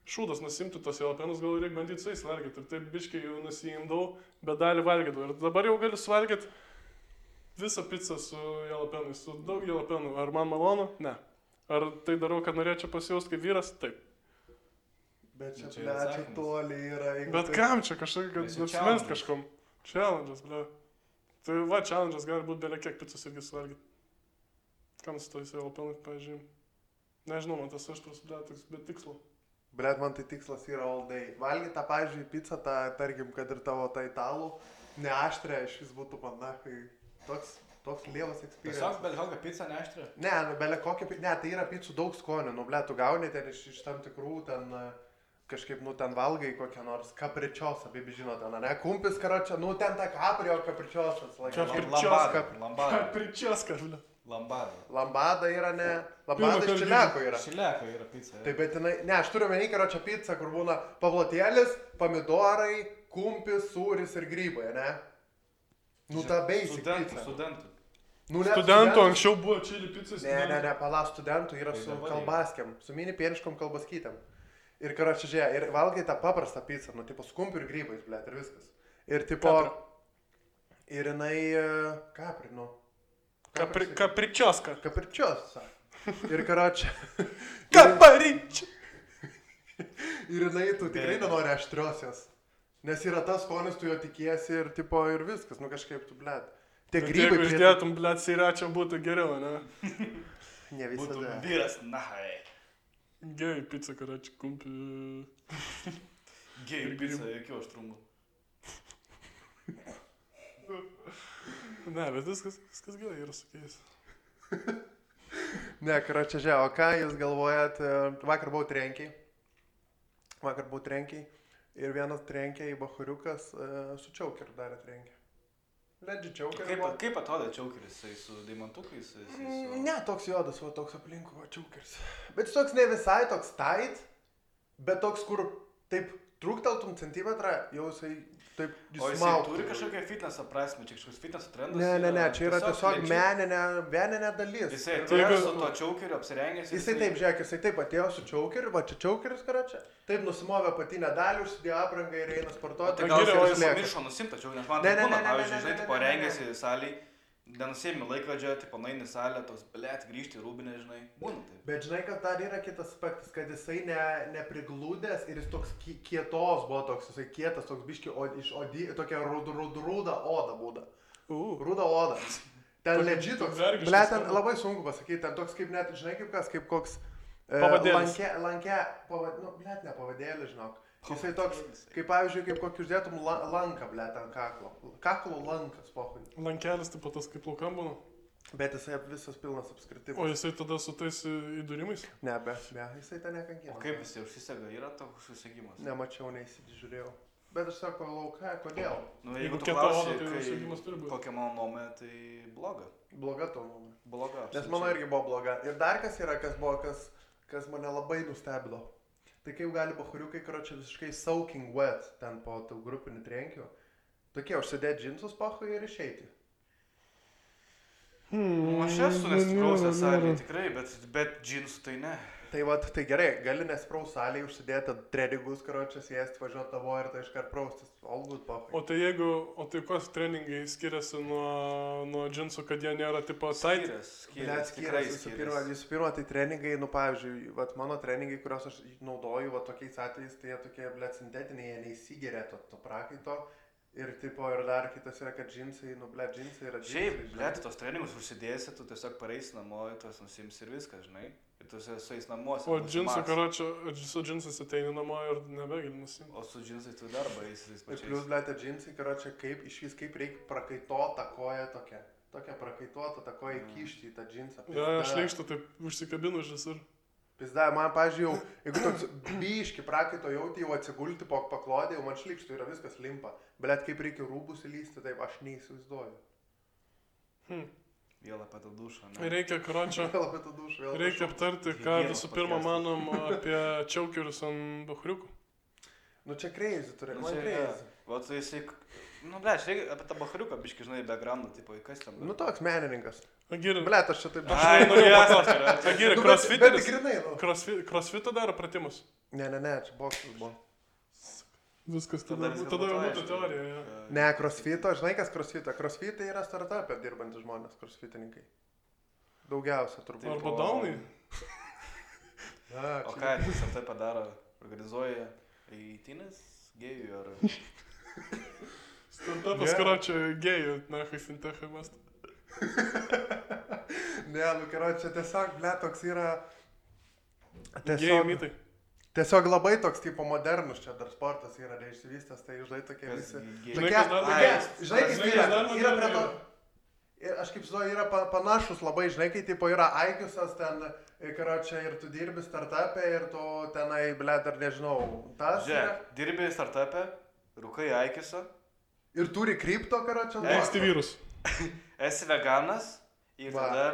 Šūdas nusimti tos jalapenus, gal reikia bandyti su jais valgyti. Ir taip biškai jau nusimdavau, bet dalį valgydavau. Ir dabar jau galiu suvalgyti visą pizzą su jalapenais, su daug jalapenų. Ar man malonu? Ne. Ar tai darau, kad norėčiau pasijausti kaip vyras? Taip. Bet čia, čia toli yra. Bet kam čia kažkaip, kad nusimest kažkom? Challenge'as, ble. Tai va, challenge'as gali būti belia kiek pizzos irgi suvalgyti. Kam su tojais jalapenais, pavyzdžiui? Nežinau, man tas aštras, ble, toks be tikslo. Blet, man tai tikslas yra all day. Valgyti tą, pavyzdžiui, pizzą, tą, tarkim, kad ir tavo tą italų, neaštrę, iš vis būtų man, na, kai toks lievas experience. Tiesiog belia kokią pizzą neaštrę? Ne, belia kokią pizzą, ne, tai yra pizzų daug skonių, nu, blet, tu gauni ten iš tam tikrų, ten, kažkaip, nu, ten valgai kokią nors kapričiosą, baby žino, ten, ne, kumpis, karočią, nu, ten tą kaprio kapričiosas. Kapričioska, ble. Lambada yra, ne, lambada iš čiliako yra. Čiliako yra pizza. Taip, bet jinai, ne, aš turiu menį karočią pizzą, kur būna pavlotėlis, pomidorai, kumpis, sūris ir grybai, ne? Nu, ta basic pizza. Studentų anksčiau buvo čili pizzas. Ne, pala, studentų yra su kalbaskiam, su mini pieniškom kalbaskytėm. Ir karočią, žiūrėk, ir valgai tą paprastą pizzą, nu, tipo, su kumpiu ir grybais, blėt, ir viskas. Ir, tipo, ir jinai, kapri, nu. Kapričioska. Kapričiosa. Ir karočią. Kaparičia. Ir jinai, tu tikrai nenori aštriosios. Nes yra tas skonis, tu jo tikiesi ir, tipo, ir viskas, nu, kažkaip tu, blėt. Tie grybai. Jeigu išdėtum, blėt, siračia būtų geriau, ne? Ne visada. Būtų vyras, nahai. Gei pizza, karoči, kumpi. Gei pizza, jokių aštrumų. Ne, bet viskas gerai yra su jais. Ne, karoči, žiūrėk, o ką jūs galvojat, vakar buvau trenkiai ir vienas trenkė į bachuriukas su čiaukeriu darė trenkė. Ledži čiaukeris. Kaip atrodo čiaukeris, jisai su deimantukais? Ne, toks juodas, o toks aplinkų, va, čiaukeris. Bet jis toks ne visai toks tight, bet toks, kur taip trūkteltum centimetrą, jau jisai taip dismauktų. O jisai turi kažkokią fitneso prasme, čia kažkoks fitneso trendas? Ne, čia yra tiesiog meninė dalis. Jisai atėjo su to čiaukeriu apsirengęs. Jisai taip, žiūrėk, jisai taip atėjo su čiaukeriu, va čia čiaukeris, karočią. Taip nusimovė patinę dalį, užsidėjo aprangą ir eina sportuoti. Tai gal jis pamiršo nusimti tačiau, nes man tai būna, pavyzdžiui, žinai, tipo rengėsi saliai, nenusėmė laikrodžio, tipo naini salę, toks, blėt, grįžti į rūbinę, žinai, būna taip. Bet žinai, kad dar yra kitas aspektas, kad jisai nepriglūdęs ir jis toks kietos buvo toks, jisai kietas, toks biški, tokia rūda oda būda. Rūda oda. Ten ledži toks, blėt, ten labai sunku pasakyti, ten toks kaip net, žinai, kaip kas, kaip koks blėt, ne pavadėlį, žinok. Jisai toks, kaip pavyzdžiui, kaip kokį uždėtum lanką, blėt, ant kaklo. Kaklo lankas, pohui. Lankelis taip pat tas kaip laukam būna. Bet jisai visas pilnas apskritimas. O jisai tada su tais įdūrimais? Ne, jisai ten nekankina. O kaip jisai užsisega, yra toks užsisegimas? Nemačiau, neįsižiūrėjau. Bet aš sako, lauka, kodėl? Nu, jeigu tu klausi, kokia mano nuomonė, tai bloga. Bloga tavo nuomonė. Bloga. Nes mano irgi buvo bloga. Ir dar kas yra, kas mane labai nustebino. Tai kaip gali bachuriukai, karočią, visiškai soaking wet ten po tų grupinių trenkių. Tokie užsidėti džinsus pachui ir išeiti. Aš esu nesiprausęs salėje tikrai, bet džinsų tai ne. Tai va, tai gerai, gali nesipraus salėje užsidėti treningus, karočią, sėsti, važiuoti tavo ir tai iškart praustis. All good pachui. O tai koks treningai skiriasi nuo džinsų, kad jie nėra tipo tight? Skiriasi. Visų pirma, tai treningai, nu pavyzdžiui, vat mano treningai, kuriuos aš naudoju, va tokiais atvejais, tai jie tokie, blėt, sintetiniai, jie neįsigeria to prakaito. Ir tipo, ir dar kitas yra, kad džinsai, nu, blėt, džinsai yra džinsai. Šiaip, blėt, tos treningus užsidėsi, tu tiesiog pareisi namo, tuos nusims ir viskas, žinai. Ir tu su jais namuose. O džinsų, karočią, su džinsais ateini namo ir nebegali nusimti. O su džinsais tu darbą eisi tais pačiais. Ir plius, blėt, džinsai, karočią, kaip reikia prakaituotą koją tokią. Tokią prakaituotą tą koją įkišti į tą džinsą. Ja, aš leikštų taip užsikabinu iš visur. Pizda, man, pažiūrėjau, jeigu toks biški prakaito jauti, jau atsigulti po paklodė, jau man šlikštų yra viskas limpa. Blet, kaip reikia rūbus įlysti, taip aš neįsivaizduoju. Vėl apie tą dušą, ne? Reikia, karočią, reikia aptarti, ką visų pirma manom apie čiaukerius ant bachuriukų. Nu čia crazy turi, Nu, man čia, crazy. Va, tai jisai, nu, ble, čia reikia apie tą bachariuką, biški, žinai, backgroundą, tipo, kas ten. Nu toks menininkas. Agiri, Blet, aš čia taip... Ai, nu, jasnas, Agiri, Nu, bet crossfiteris. grinai, nu. Crossfitą daro pratimus. Ne, čia boksas buvo. Viskas, Tada tada viskas jau būtų būtų aišku. teorija. Ja. Ne, crossfito, žinai kas crossfito? Crossfitai yra startupė dirbantys žmonės, crossfitininkai. Daugiausia turbūt. Taip. Arba daunai. O ką, jis ar tai padaro, organizuoja eitynės gėjų ar... Startupas, karočią, gėjų, nahai, fintechai mąstą. Ne, nu karočią, tiesiog, ble, toks yra... Gėjų mitai. Tiesiog labai toks tipo modernus čia dar sportas yra neišsivystęs, tai žinai tokie Kas visi... gėjų? Žinai, kas dar Ai, Žinai, kaip žinai, yra, kas dar yra prie to... modernu Ir aš kaip žinau, yra panašus labai, žinai, kai tipo yra aikiusas ten, karočią, ir tu dirbi startupė ir tu tenai, ble, dar nežinau, tas... Žiūrėk, dirbi startupė, rūkai aikiuose, Ir turi kripto, karočią. Mėgsti vyrus. esi veganas ir Va. tada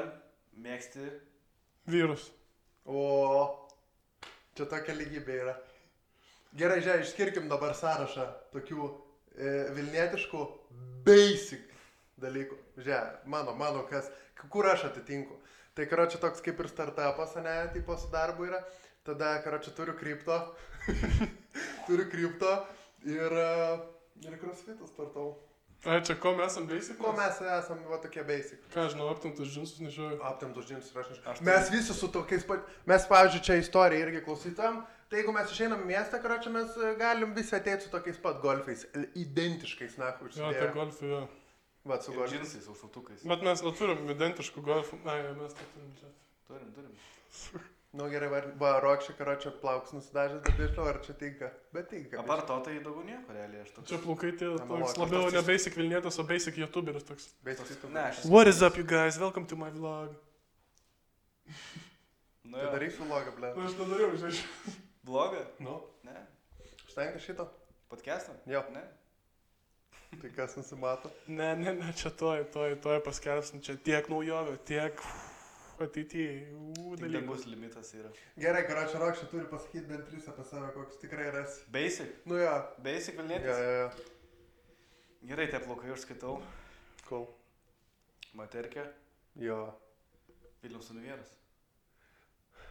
mėgsti... Vyrus. O, čia tokia lygybė yra. Gerai, žiūrėk, išskirkim dabar sąrašą tokių vilnietiškų basic dalykų. Žiūrėk, mano kas, kur aš atitinku. Tai, karočią, toks kaip ir startupas, ne, tipo su darbu yra. Tada, karočią, turiu kripto. Turiu kripto ir crossfitą startau. Ai, čia ko mes esam basic? Ko mes esam, va, tokie basic. Ką, žinau, aptimtus džinsus nešioju. Aptemtus džinsus ir aš Aš tai- Mes visi su tokiais pat... Mes, pavyzdžiui, čia istoriją irgi klausytam. Tai jeigu mes išeinam į miestą, karočią, mes galim visi ateiti su tokiais pat golfais. Identiškais, na, Jo, užsidėję. tai golfai, jo. Va, su Ir golfais. džinsais, su šautukais. Bet mes neturim identiškų golfų. Ai, mes tai turim čia. Turim. Nu gerai, va, Rokšė, karočią, plauks nusidažęs, bet nežinau, ar čia tinka. Bet tinka. Apart to, tai daugiau nieko realiai aš toks. Čia plaukai tie Analogas. toks labiau ne basic Vilnietis, o basic YouTuberis toks. Basic tu. Ne, aš esu- What is up, you guys? Welcome to my vlog. Nu, Tai jo. darysiu vlogą, ble. Nu, aš nedariau, žinai. Blogą? Nu. Ne. Užtenka šito? Podcastą? Jo. Ne. Tai kas nusimato? Ne, čia toj paskelbsim, čia tiek naujovių, tiek ateityje Tik dalykų. dangus limitas yra. Gerai, karočią, Rokšė turi pasakyti bent 3 apie save, koks tikrai rasi. Basic. Nu jo. Basic Jo, Vilnietis. jo. Gerai, tie plaukai užskaitau. Cool. Materkė. Jo. Vilniaus univieras.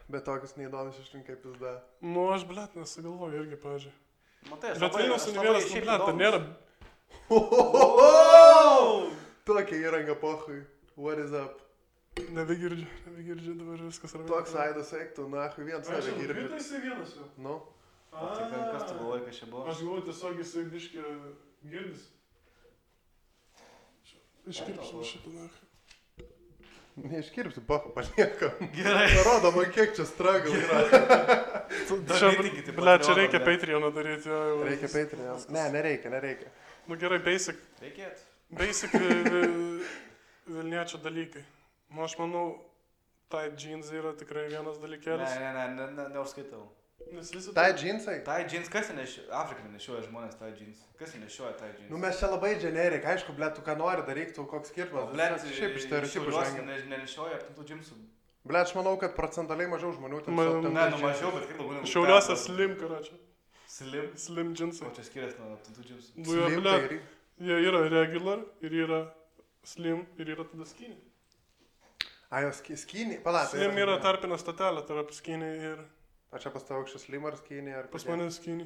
Bet tokius neįdomus išrinkai pizda. Nu, aš, blet, nesigalvoju irgi, pavyzdžiui. Matai, aš Bet Vilniaus aš univieras, nu, šiaip blet, tai įdomus. nėra... Tokia įranga pohui. What is up? Nebegirdžiu, dabar viskas yra. Toks aidas eiktų, nahui, vien save girdžiu. Jisai vienas jau. Nu, Tai kas tu galvoji, kas čia buvo? Aš galvoju, tiesiog jisai biškį girdis. Iškirpsim šitą nachą. neiškirpsiu, pohu, paliekam. Gerai. Parodo man, kiek čia struggle yra. Čia, Darykite blet, čia Patreoną, reikia blet. Patreoną daryti. Jo, Reikia Patreon. Ne, nereikia. Nu gerai, basic Reikėtų. Vilniečio dalykai. Nu, aš manau, tai jeans yra tikrai vienas dalykėlis. Neužskaitau. Nes visi... Tai džinsai? Tai jeans, kas nešioja? Afrikai nešioja žmonės tai jeans. Kas nešioja tai jeans? Nu mes čia labai generik, aišku, ble, tu ką nori daryk, tu koks skirtumas. Blet, Šiaip iš stereotipų žvengia. Nenešioja aptintų džinsų. Ble, aš manau, kad procentaliai mažiau žmonių ten Man- su aptemptais Ne, nu džinsais. mažiau, bet kaip daugiau. Šiauliuose slim, karočią. Slim. Slim jeansai. O čia skiriasi nuo aptintų džinsų. Nu, jo, Slim, blet, tai jie yra regular ir yra slim ir yra tada skinny. A, jos skinny, palauk. Slim yra tarpinė statelė tarp skinny ir O čia pas tavo aukščias slim ar skinny ar pas kokie? mane skinny.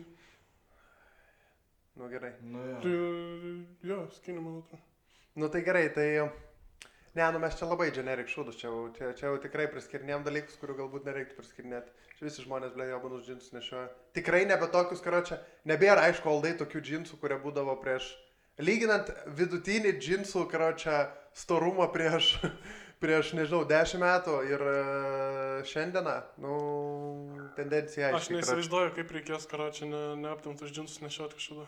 Nu gerai. Nu Tai, jo. jo, skinny, man atrodo. Nu tai gerai, tai... Ne, nu mes čia labai generik šūdus, čia jau tikrai priskirinėjom dalykus, kurių galbūt nereiktų priskirinėti. Čia visi žmonės, ble, jobanus džinsus nešioja. Tikrai nebe tokius, karočią, nebėra, aišku, aldai tokių džinsų, kurie būdavo prieš... Lyginant vidutinį džinsų, karočią, storumą prieš, nežinau, 10 metų ir šiandieną, nu, tendencija Aš aiškiai. neįsivaizduoju, kaip reikės, karočią, neaptimtus džinsus nešioti kažkada.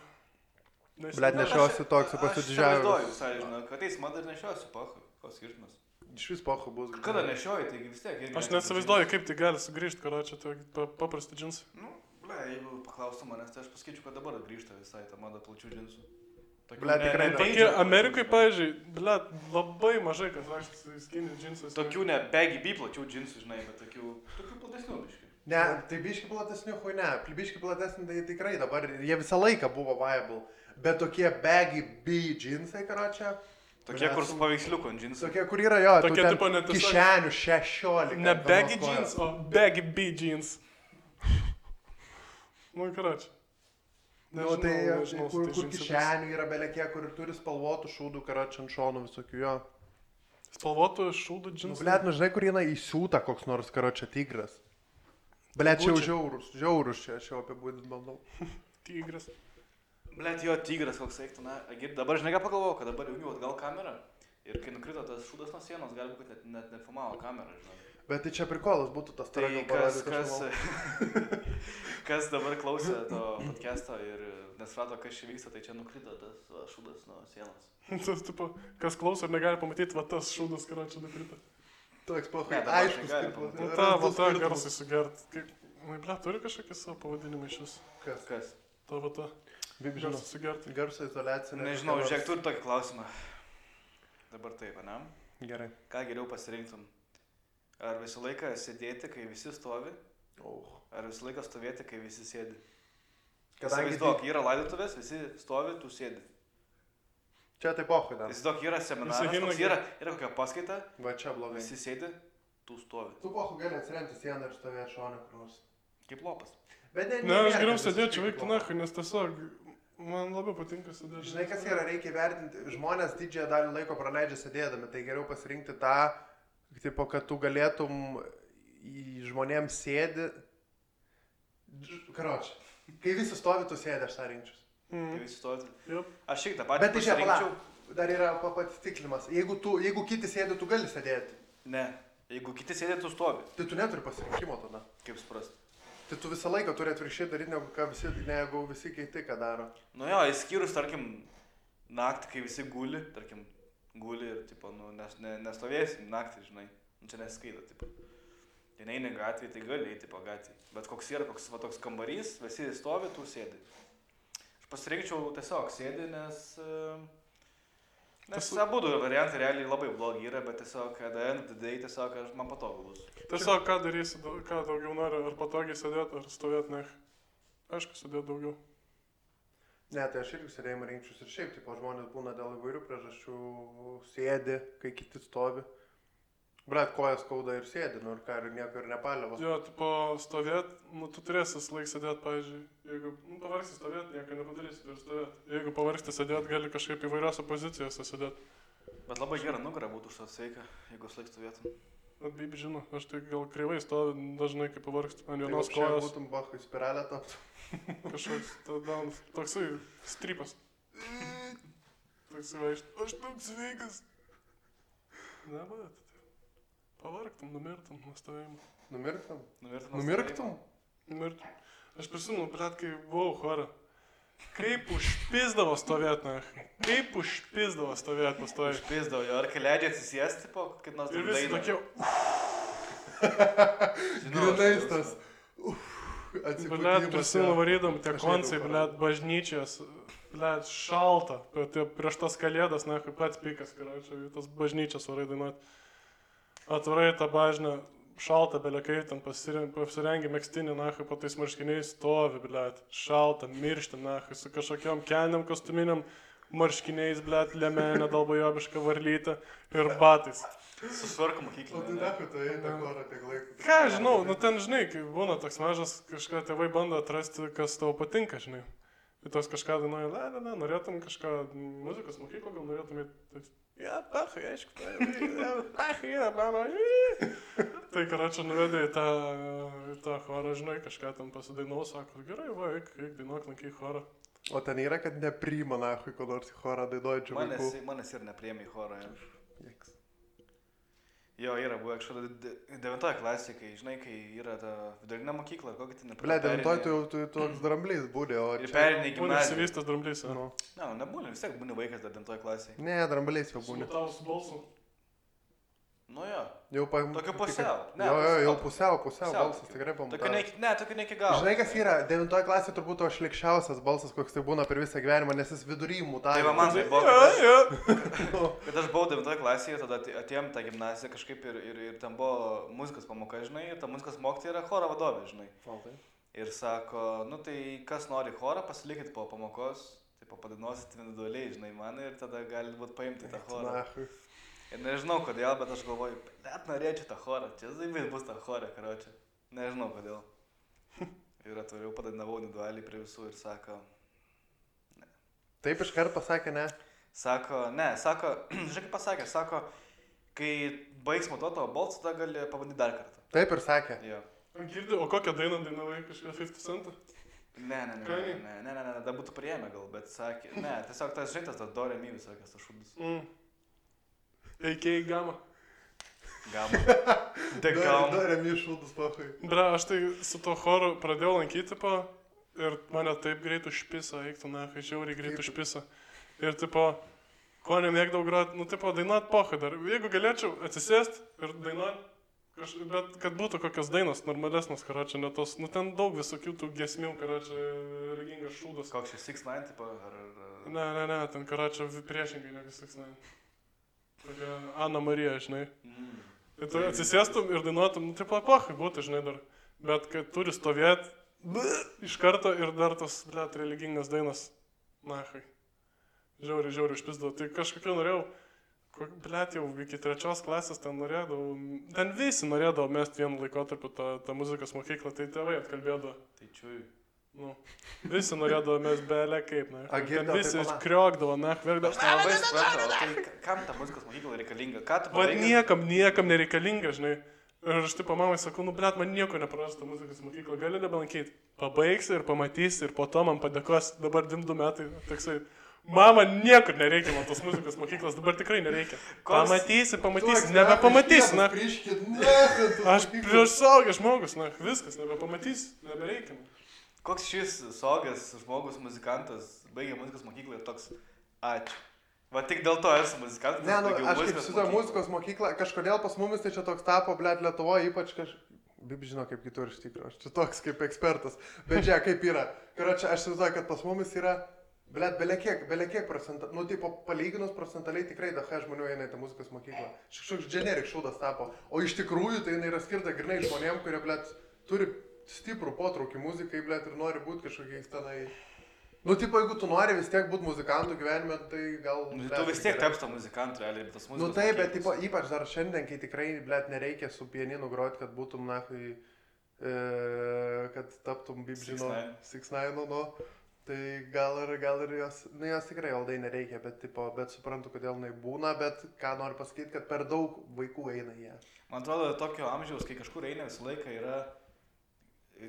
Blet, nešiosiu toks, Aš pasididžiavęs. įsivaizduoju visai, žinau, kad ateis mada ir nešiosiu, pahu. Koks skirtumas? Iš vis pochu bus. Kada nešioji, taigi vis tiek. irgi Aš neaptintų neįsivaizduoju, kaip tai gali sugrįžti, karočią, tai paprasti džinsai. džinsų. Nu, ble, jeigu paklaustų manęs, tai aš pasakyčiau, kad dabar grįžta visai ta mada plačių džinsų. Tokių Ble, tikrai ne. Tokie Amerikai, pavyzdžiui, blet, labai mažai kas vaikštas skinny džinsais. Tokių ne baggy B plačių džinsų, žinai, bet tokių platesnių biškai. Ne, tai biški platesnių, hui ne, biški platesni tai tikrai dabar, jie visą laiką buvo viable, bet tokie baggy B džinsai, karočią. Tokie, kur su paveiksliuku ant džinsų. Tokie, kur yra jo, Tokie tipo net kišenių 16. Ne baggy jeans, o baggy B jeans. Nu, karočią. Nu, tai kur kišenių yra belekie, kur turi spalvotų šūdų, karočią ant šonų visokių jo. Spalvotų šūdų Nu, džinsų? blėt, nu žinai, kur eina įsiūta koks nors, karočią, tigras. Blėt, čia jau žiaurus čia, aš jau apibūdint bandau. Tigras. Blet, jo, tigras koks eiktų, na, dabar žinai ką pagalvojau, kad dabar jungiu atgal kamerą ir kai nukrito tas šūdas nuo sienos, gali būti, kad net nefilmavo kamerą, žinai. Bet tai čia prikolas būtų tas Tai kas dabar klausė to podcast'o ir nesuprato, kas čia vyksta, tai čia nukrito tas šūdas nuo sienos. Tas, tipo, kas klauso ir negali pamatyti, va tas šūdas, karočią, nukrito. Toks pohai, Ne, dabar aiškus. negali kaip- pamatyti. Va ta garsai sugert. Na, ble, turi kažkokį savo pavadinimą iš vis. Kas? Ta va ta. Kaip žinau, Garsai sugert. garso izoliacija. Nežinau, žiūrėk, turi tokį klausimą. Dabar taip, ne? Gerai. Ką geriau pasirinktum? Ar visą laiką sėdėti, kai visi stovi? Ar visą laiką stovėti, kai visi sėdi? Kadangi Įsivaizduok, yra laidotuvės, visi stovi, tu sėdi. Čia tai pohai dar. Įsivaizduok, yra seminaras, Visi himnai- toks yra kokia paskaita, Va čia blogai. visi sėdi, tu stovi. Tu pohai gali atsiremti sieną ir stovėti šonę kur nors. Kaip lopas. Bet Ne, aš geriau sėdėčiau veikti nahui, nes tiesiog man labiau patinka sėdėti. Žinai, kas yra, reikia vertinti, žmonės didžiąją dalį laiko praleidžia sėdėdami, tai geriau pasirinkti tą, tipo, kad tu galėtum į žmonėms sėdi. Karoči, kai visi stovi, tu sėdi, aš tą rinkčius. Kai visi stovi. Jop. Aš šiek tiek tą patį Bet tai čia, pasirinkčiau. pala, dar yra patiklimas. Jeigu kiti sėdi, tu gali sėdėti. Ne, jeigu kiti sėdė, tu stovi. Tai tu neturi pasirinkimo tada. Kaip suprasti? Tai tu visą laiką turi atvirkščiai daryti, negu visi kiti ką daro. Nu jo, įskyrus, tarkim, naktį, kai visi guli, tarkim, guli ir, tipo, nu, nestovėsim naktį, žinai. Nu, čia neskaita, tipo. Tai neini gatvėje, tai gali eiti po gatvėje. Bet koks yra toks kambarys, visi stovi, tu sėdi. Aš pasirinkčiau tiesiog sėdi, nes abudu variantai realiai labai blogi yra, bet tiesiog, at the end of the day, tiesiog man patogu bus. Tiesiog ką darysi, ką daugiau nori, ar patogiai sėdėti, ar stovėti, ne. Aišku, sėdėti daugiau. Ne, tai aš irgi sėdėjimą rinkčius ir šiaip, tipo, žmonės būna dėl įvairių priežasčių sėdi, kai kiti stovi. Brat, kojas skauda ir sėdi, nu ir ką, ir nieko ir nepaliavo. Jo, tipo, stovėti, nu, tu turėsi laik sėdėti, pavyzdžiui, jeigu pavargsi stovėti, nieko nepadarysi, turi stovėti. Jeigu pavargsti sėdėti, gali kažkaip įvairiose pozicijose sėdėti. Bet labai gera nugara būtų už tą sveika, jeigu laik stovėtum. Bet bibi žino, aš tai gal kreivai stoviu dažnai, kai pavargsti ant Tai vienos čia kojos. būtum bahai spiralę taptų. Kažkoks toksai strypas. Toksai vaikšt, aš toks sveikas. Ne, bet, pavargtum, numirtum nuo stovėjimo. Numirktum? Numirtum. Numirktum? Numirtum. Aš prisimenu, blet, kai buvau chore. Kaip užpizdavo stovėti, na. Kaip užpizdavo stovėti pastovėti. Užpizdavo jo, ar kai leidžia atsisėsti po kaip nors Ir visi tokie, Grinais tas. blet, prisimenu varydam, tie koncai, blet, bažnyčios, blet, šalta. Prieš tas kalėdas, na, kaip pats pikas, karočiui, tas bažnyčias varai dainuoti. Atvarai tą bažnę, šalta, belekai, ten pasirengi megztinį, na, po tais marškiniais stovi, blet, šalta, miršti, na, su kažkokiam kelniam kostuminiam marškiniais, blet, lemenė, dalbojobiška varlytė ir batais. Susvarko O tai mokyklinė. dėkui, tai eina korą tiek laiko. Ką, žinau, nu ten, žinai, kai būna toks mažas, kažką tėvai bando atrasti, kas tau patinka, žinai. Ir tos kažką dainuoja, ne, norėtum kažką, muzikos mokyklą, gal norėtum į... Ja, pachai, aišku, pachai, mano. Tai, karočią, nuvedė į tą chorą, žinai, kažką ten pasidainuo, sako, gerai, va, eik dainuok, lankyk chorą. O ten yra, kad nepriima nahui, ko nors į chorą dainuojančių vaikų. Manęs ir nepriėmė į chorą. Jeks. Jo, yra buvo kažkada 9 klasė, kai, žinai, kai yra ta vidurinė mokykla, ar kokį ten Ble, 9 tu toks dramblys būdė, o Ir čia... perinė Būna gimnazija. išsivystęs dramblys, Nu. Ne, nu nebūna, vis tiek būni vaikas dar 9 klasėje. Ne, dramblys jau būni. Smutaus balsu. Nu jo. Jau Tokio pusiau. Ne, Jau pusiau balsas tokiu. tikrai Tokiu pamatavimas. tokiu ne iki galo. Žinai, kas yra, 9 klasė turbūt to šlikščiausias balsas, koks tai būna per visą gyvenimą, nes jis vidury mutavė. Tai va man tai buvo, kad aš buvau 9 klasėje, tada atėjom tą gimnaziją kažkaip ir ten buvo muzikos pamoka, žinai, ir ta muzikos mokytoja yra choro vadovė, žinai. Ir sako, nu tai kas nori chorą, pasilikit po pamokos, tai padainuosit individualiai, žinai, man ir tada gali būt paimti tą chorą. Ir nežinau kodėl, bet aš galvoju, net norėčiau tą chorą, čia zaibės bus tą chorą, karočią. Nežinau kodėl. Ir atvariau padainavau individualiai prie visų ir sako, ne. Taip iškart pasakė, ne? Sako, žinai kaip pasakė, sako, kai baigs matuoti tavo balsą, tada gali pabandyti dar kartą. Taip ir sakė. Jo. Girdi, o kokią dainą dainavai kažką 50 centą? Ne, da būtų priėmę gal, bet sakė, ne, tiesiog tas žintas, tas do re mi visokias, tas šūdus. Eikiai gama. Gama. Tik gama. Do re mi šūdus, pahui. Bra, aš tai su to choru pradėjau lankyti, ir mane taip greit užpisa, eiktų, žiauriai greit užpisa. Ir, ko nemėgdavau groti, dainuot pochai dar. Jeigu galėčiau atsisėsti ir dainuot, bet kad būtų kokios dainos normalesnės, karočią, ne tos, ten daug visokių tų giesmių, karočią, religingas šūdas. Koks čia 6ix9ine, ar... Ne, ten karočią priešingai negu 6ix9ine. Tokia Ana Marija, žinai. Tai tu atsisėstum ir dainuotum, pochai būtų, žinai, dar. Bet kad turi stovėti iš karto ir dar tos, religingas dainas, žiauriai užpisdavo. Tai kažkokiu norėjau, jau iki 3 klasės ten norėdavau, ten visi norėdavo mesti vienu laikotarpiu tą muzikos mokyklą, tai tėvai atkalbėdavo. Tai čiui. Visi norėdavo mesti belė kaip, ten visi kriokdavo, verkdavo. Aš nelabai supratau, tai kam ta muzikos mokykla reikalinga? Ką tu pabaigęs? Niekam nereikalinga, žinai. Ir aš mamai sakau, blet, man nieko neprarasta muzikos mokykla, gali nebelankyti. Pabaigsi ir pamatysi ir po to man padėkos, dabar 2 metai, toksai. Mama, niekur nereikia man tos muzikos mokyklos, dabar tikrai nereikia. Pamatysi, nebepamatysi, Aš prieš suaugęs žmogus, viskas, nebepamatysi, nebereikia. Koks šis suaugęs žmogus, muzikantas, baigė muzikos mokyklą ir toks, ačiū. Va tik dėl to esu muzikantas. Ne, aš kaip šitą muzikos mokyklą, kažkodėl pas mumis tai čia toks tapo, blet, Lietuvoje, ypač Bib žino kaip kitur iš tikrųjų, aš čia toks kaip ekspertas, bet čia kaip yra. Karočią, aš įsivaizduoju, kad pas mumis yra, blet, belekiek procentų, palyginus procentaliai tikrai daug žmonių eina į tą muzikos mokyklą. Kažkoks generik šūdas tapo, o iš tikrųjų tai jinai yra skirta grinai žmonėm, kurie, blet, turi stiprų potraukį muzikai, blet, ir nori būti kažkokiais tenai. Jeigu tu nori vis tiek būti muzikantų gyvenime, tai gal... Tu vis tiek tapsi to muzikantų, realiai, bet tas muzikos... Taip, bet ypač dar šiandien, kai tikrai, blet, nereikia su pianinu groti, kad būtum, kad taptum, Bib žino, 6ix9ine, tai gal ir jos tikrai aldai nereikia, bet suprantu, kodėl jinai būna, bet ką noriu pasakyti, kad per daug vaikų eina jie. Man atrodo, tokio amžiaus, kai kažkur eina visą laiką yra,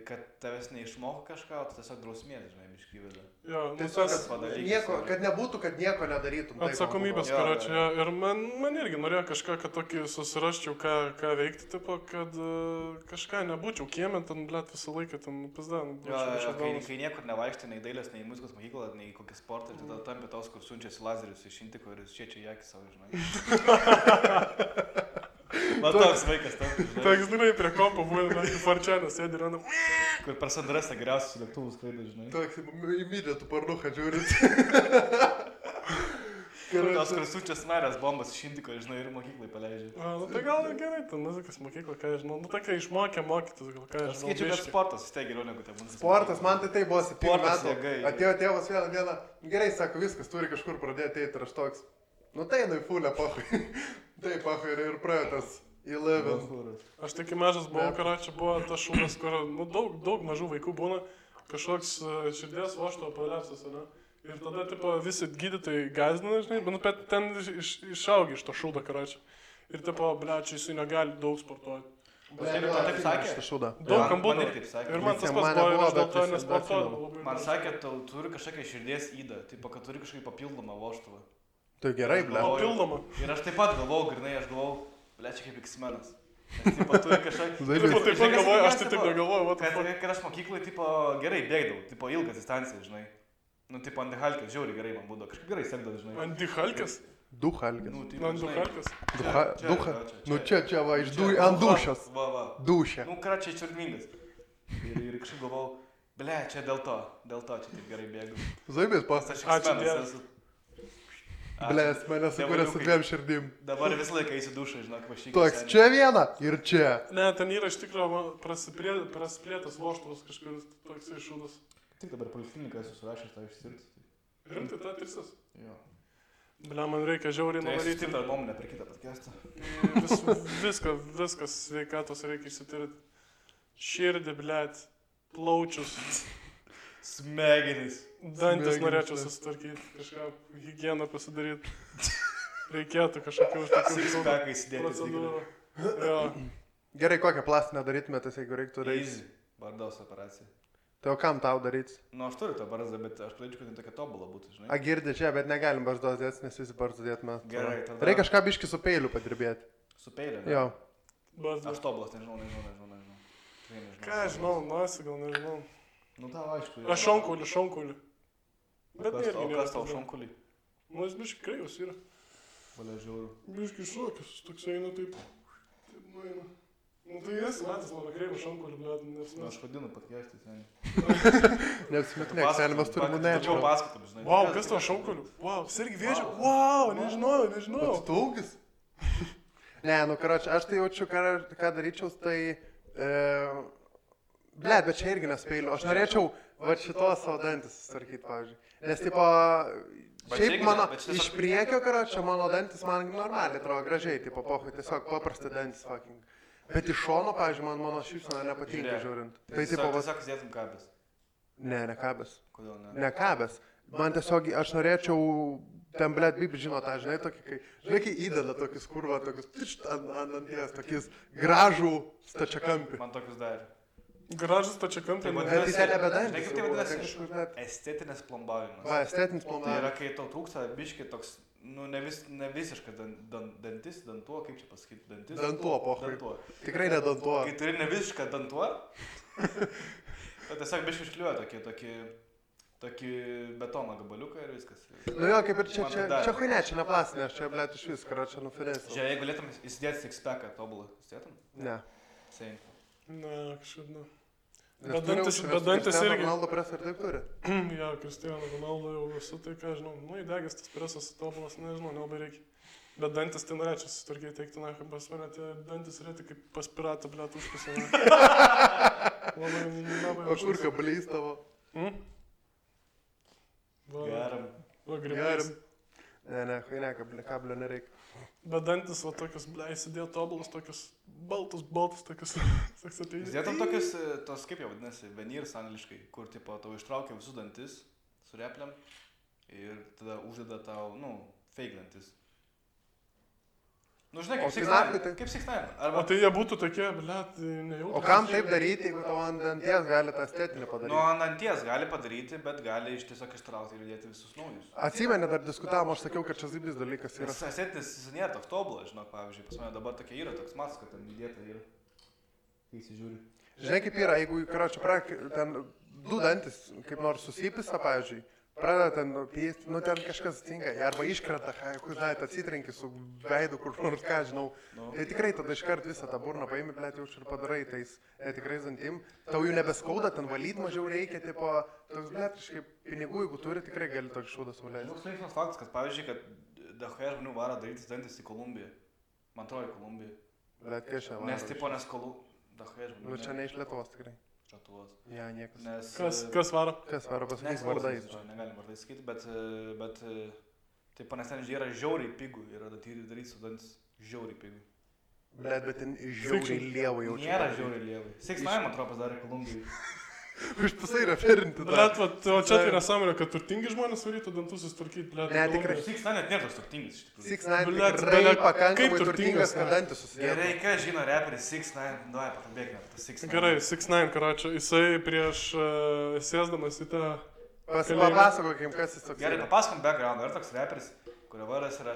kad tavęs neišmoko kažką, o tu tiesiog drausmės, žinai, biškį vėliau. Jo, kad nebūtų, kad nieko nedarytum. Atsakomybės, karočią. Ir man irgi norėjo kažką, kad tokį susirasčiau, ką veikti, kad kažką nebūčiau kiemė, ten, blet, visą laiką, ten, pizdan. Kai niekur nevaikštai, nei dailės, nei muzikos mokyklą, nei kokį sportą, tai tada tampi tos, kur siunčiasi lazerius iš Intiko ir šiečia į akį savo, žinai. Man toks vaikas tam. Toks, žinai, prie kompo būna, farčianas sėdi ir randa. Kur per Sandrasą geriausius lėktuvus skraido, žinai. Toks, įmydė tu parnuką žiūrit. Tos, kur siunčia scenarijas bombas iš Intiko, žinai, ir mokyklai paleidžia. Tai gal gerai, ten muzikos mokykla, ką žinau. Tokia išmokė mokytis, gal ką žinau. Skaičiu, kad sportas vis tiek geriau negu tai muzikos. Sportas, man tai buvo 7 metų. Atėjo tėvas vieną dieną, gerai, sako, viskas, turi kažkur pradėti eiti ir aš toks. Tai einu į fulę, pachui. Taip, pachui, ir praėjo tas 11. Aš tik mažas buvau, karočią, buvo tas šūdas, kur daug mažų vaikų būna, kažkoks širdies vožto prolapsas, ne? Ir tada, visi gydytojai gąsdina, žinai, bet ten išaugi iš to šūdo, karočią. Ir, blečiai, jisai negali daug sportuoti. Taip sakė? Daug kam būna. Ir man tas pats buvo, ir aš dėl to nesportuodavau. Man sakė, tu turi kažkokią širdies įdą, kad turi kažkokį papildomą vožtuvą. Tai gerai, ble. Papildomą. Ir aš taip pat galvojau, grinai, blečiai kaip X-menas. Turi kažkokį... Taip pat galvoju, aš taip negalvoju. Kad aš mokyklai, gerai bėgdavau, ilgas distancijas, žinai. Antihalkės, žiauriai gerai man būdavo, kažkaip gerai sekdavo, žinai. Antihalkės? Duchalkis. Nu, tai Man žinai, duchalkas. Nu čia va, ant dušas. Va. Dušė. Nu, ką čia čiurningas. Ir kažkaip galvau, ble, čia dėl to čia taip gerai bėgu. Zaibės pas. Aš Ačiū X-menas Dievui. esu. Blės, mane sukūrė su dviem širdim. Dabar visą laiką eisi dušą, žinok, vašyk. Toks čia viena ir čia. Ne, ten yra iš tikrųjų prasiplėtas voštuvas kažkuris toksai šūdas. Tik dabar polikliniką esu surašęs tą išsirti. Rimtai, ta tirsis. Jo. Ble, man reikia žiauriai Tai esi nuvaryti. tik dar nuomonę per kitą podcastą. Viskas sveikatos reikia išsitirti. Širdį, blėt, plaučius, Smegenys. dantis Smegenys, norėčiau ne. susitvarkyti, kažką higieną pasidaryti. Reikėtų kažkokių tokių Sixpackai įsidėti. procedūrų. Jo. Gerai, kokią plastinę darytumėtės, jeigu reiktų daryti? Easy. Bardaus operacija. Tai o kam tau daryti? Nu, aš turiu tą barzdą, bet aš pradėčiau, kad jin tokia tobula būtų, žinai. A girdi čia, bet negalim barzdos dėti, nes visi barzdą dėt mes. Gerai, tada- Reikia kažką biški su peiliu padirbėti. Su peiliu. ne? Jo. Bazdas. Aš tobulas, nežinau. Tikrai nežinau. Ką aš žinau, nosi gal nežinau. Nu, tau aišku. Aš šonkulį. Bet O irgi kas tau nėra. šonkulį? Nu, jis biškai kreivas yra. Valia žiauriu. Biškai šokis, toks eina taip. Taip nueina. Nu tai esi matęs mano kreivą šonkulį, bet nes Nu, aš vadinu podcast'į, seniai. Neapsimetinėk, seniai mes turim Tačiau nečio. paskatom, žinai. Wow, kas tavo šonkoliu? Wow, sergi vėžio. Wow, nežinau. Atstūgis? Ne, nu, karoči, aš tai jaučiu, ką daryčiau, tai... Blet, bet čia irgi nespeiliu. Aš norėčiau va šitos savo dantis susitvarkyti, pavyzdžiui. Nes, tipo, Bet šiaip čia mano, irgi- bet čia iš priekio, karoči, mano dantis man normaliai atrodo gražiai, tipo, pohui, tiesiog paprasti dantis, fucking. Bet iš šono, pavyzdžiui, man mano šypsena nepatinka žiūrint. Tai, tipo, va... Tiesiog įsidėtum kabės. Ne kabės. Kodėl ne? Ne kabės. Man tiesiog, aš norėčiau, ten, blet, bibi žino tą, žinai, tokį, kai įdeda tokius kurva, tokius, tišt, ant danties, tokius gražų stačiakampį. Man tokius darė. Gražus tačia kampė. Tai Bet tai ten nebe Žinai, dantis. kaip tai jau, vadinasi? ten kažkur net- Estetinis plombavimas. Va, estetinis Tai planavimas. yra, kai tau trūksta biški toks, nu, ne visiškai dantis, dantuo, kaip čia pasakyti, dantis. Dantuo, pohui. Dantuo. Tikrai ne dantuo. Kai turi ne visišką dantuo, tai tiesiog biški iškliuoja tokį betono gabaliuką ir viskas. Nu jo, kaip ir čia, Man čia, dar. čia huinė, čia ne plastinė, aš čia, blet, iš vis, karoči, nufinėsiu. Žiūrėk, jeigu galėtum įsidėti sixpacką tobulą, įsidėtum? Ne. Sein. Ne, kažkaip ne. Nes Bet turi dantis- užsienio, bet dantis Cristiano irgi- Ronaldo presą ir taip turi. Jo, Cristiano Ronaldo jau visų tai, ką žinau. Nu, įdegęs tas presas tobulas, nežinau, nelabai reikia. Bet dantis tai norėčiau susitvarkyti, teikti, na, kaip pas mane tie dantis rėti kaip pas piratą, blėt, užpasame. Labai O kur kablys tavo? Geram. Va, grybės. Ne, huinė, kablio nereikia. Bet dantis, va, tokius, blė, įsidėjo tobulas, tokius baltus, tokius. Toks ateini. Įsidėtum tokius, tos kaip jau vadinasi, veneers angliškai, kur tipo tau ištraukia visus dantis su repliam ir tada uždeda tau, nu, fake dantis. Nu, žinai, O kaip tai Six9. naktį tai- Kaip Six9. O Arba, tai jie būtų tokie, blėt, nejautrūs. O kam taip daryti, jeigu tavo ant danties gali tą estetinį nu, padaryti? ant anties gali padaryti, bet gali iš tiesiog ištraukti ir įdėti visus naujus. Atsimeni, dar diskutavom, aš sakiau, kad čia zibis dalykas yra. Nes esetinis jis nėra toks tobulas, žinok, pavyzdžiui, pas mane dabar tokia yra, toks matas, kad ten įdėta yra. Kai įsižiūri. Žinai, kaip yra, jeigu, karoči, ten du dantis, kaip nors susipisa, pavyzdžiui, pradeda ten pysti, nu ten kažkas atsitinka, arba iškrenta, kur, žinai, atsitrenki su veidu, kur nors ką, žinau. Nu. Tai tikrai tada iškart visą tą burną paimi, blėt, jau ir padarai tais tikrais dantim. Tau jų nebeskauda, ten valyti mažiau reikia, tipo, toks, blėt, kažkaip pinigų, jeigu turi, tikrai gali tokį šūdą suleisti. Toks linksmas faktas, kad pavyzdžiui, kad dahoje žmonių varo darytis dantis į Kolumbiją. Man atrodo, į Kolumbiją. Blėt, kai šią Nes tipo, nes dahoje žmonių. Nu, čia ne iš Lietuvos tikrai. Lietuvos. Ja, niekas. Nes... Kas varo? Kas varo pasakyti Nes vardais? Negalim vardais sakyti, bet taip, nes ten yra žiauriai pigų, yra daryti su dantis žiauriai pigų. Blėt, bet ten žiauriai lievai jaučiu. Nėra žiauriai lievai. Six9, man atrodo, padarė Kolumbijai. Užpisai referinti. Blėt, o čia tai nesąmonė, kad turtingi žmonės varytų dantus susitvarkyti, blėt. Ne, tikrai. Six9 net nėra toks turtingas, iš tikrųjų. 6ix9ine Blet, tikrai bele- pakankamai kaip turtingas, turtingas, kad ne? dantis susidėjo. Gerai, ką žino reperis Six9, davai, pakalbėkime apie tą Six9. Gerai, Six9, karočią, jisai prieš sėsdamas į tą... Papasakokim, kas jis toks. Gerai, yra. papasakom background, yra toks reperis, kurio vardas yra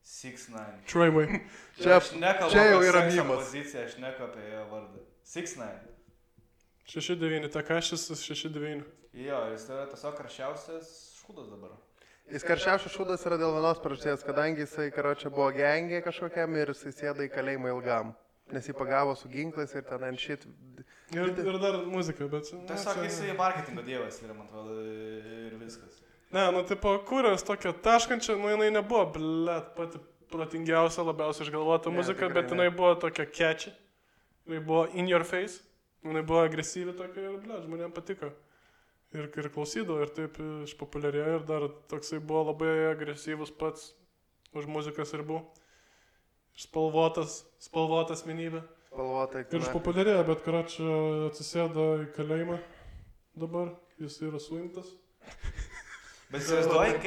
Six9. Troyway. Čia- Aš nekalbu čia jau apie yra sekso mimas. poziciją, aš nekalbu apie jo vardą. Six9. 6-9, Takašis 6-9. Jo, jis yra tiesiog karščiausias šūdas dabar. Jis karščiausias šūdas yra dėl vienos priežasties, kadangi jisai, karočią, buvo gengė kažkokiam ir jisai sėda į kalėjimą ilgam. Nes jį pagavo su ginklais ir ten ant šit. Ir dar muzika, bet... Tiesiog jisai marketingo dievas yra, man atrodo, ir viskas. Ne, nu, tipo, kūrės tokia taškančia, nu, jinai nebuvo, blet, pati protingiausia, labiausiai išgalvota muzika, bet jinai buvo tokia catchy. Jinai buvo in your face, jinai buvo agresyvi tokia ir, blet, žmonėms patiko. Ir klausydavo, ir taip išpopuliarėjo, ir dar toksai buvo labai agresyvus pats už muzikas ribų. Spalvotas asmenybė. Spalvotai. Ir išpopuliarėjo, bet karočią atsisėdo į kalėjimą dabar, jis yra suimtas. Bet įsivaizduoji,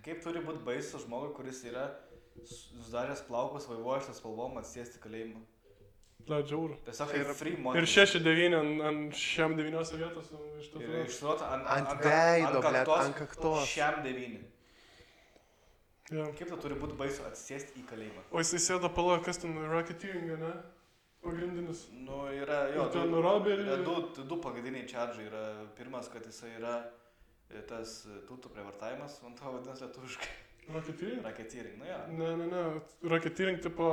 kaip turi būti baisus žmogui, kuris yra sudaręs plaukus vaivuojančias spalvom atsėsti kalėjimą. Žiauru. Tiesiog kaip free money. Ir 6-9 ant šiam 9 vietos. Ir išsuota ant veido, ant kaktos. Šiam 9. Ja. Kaip tu turi būti baisu atsisėsti į kalėjimą? O jisai sėdo pala, kas ten racketeering, ne? Pagrindinis. Nu, yra, jo, du pagrindiniai čardžai yra. Pirmas, kad jisai yra tas tūtų prievartavimas, man to vadinasi lietuviškai. Racketeering? Racketeering, nu jo. Ne. Racketeering tipo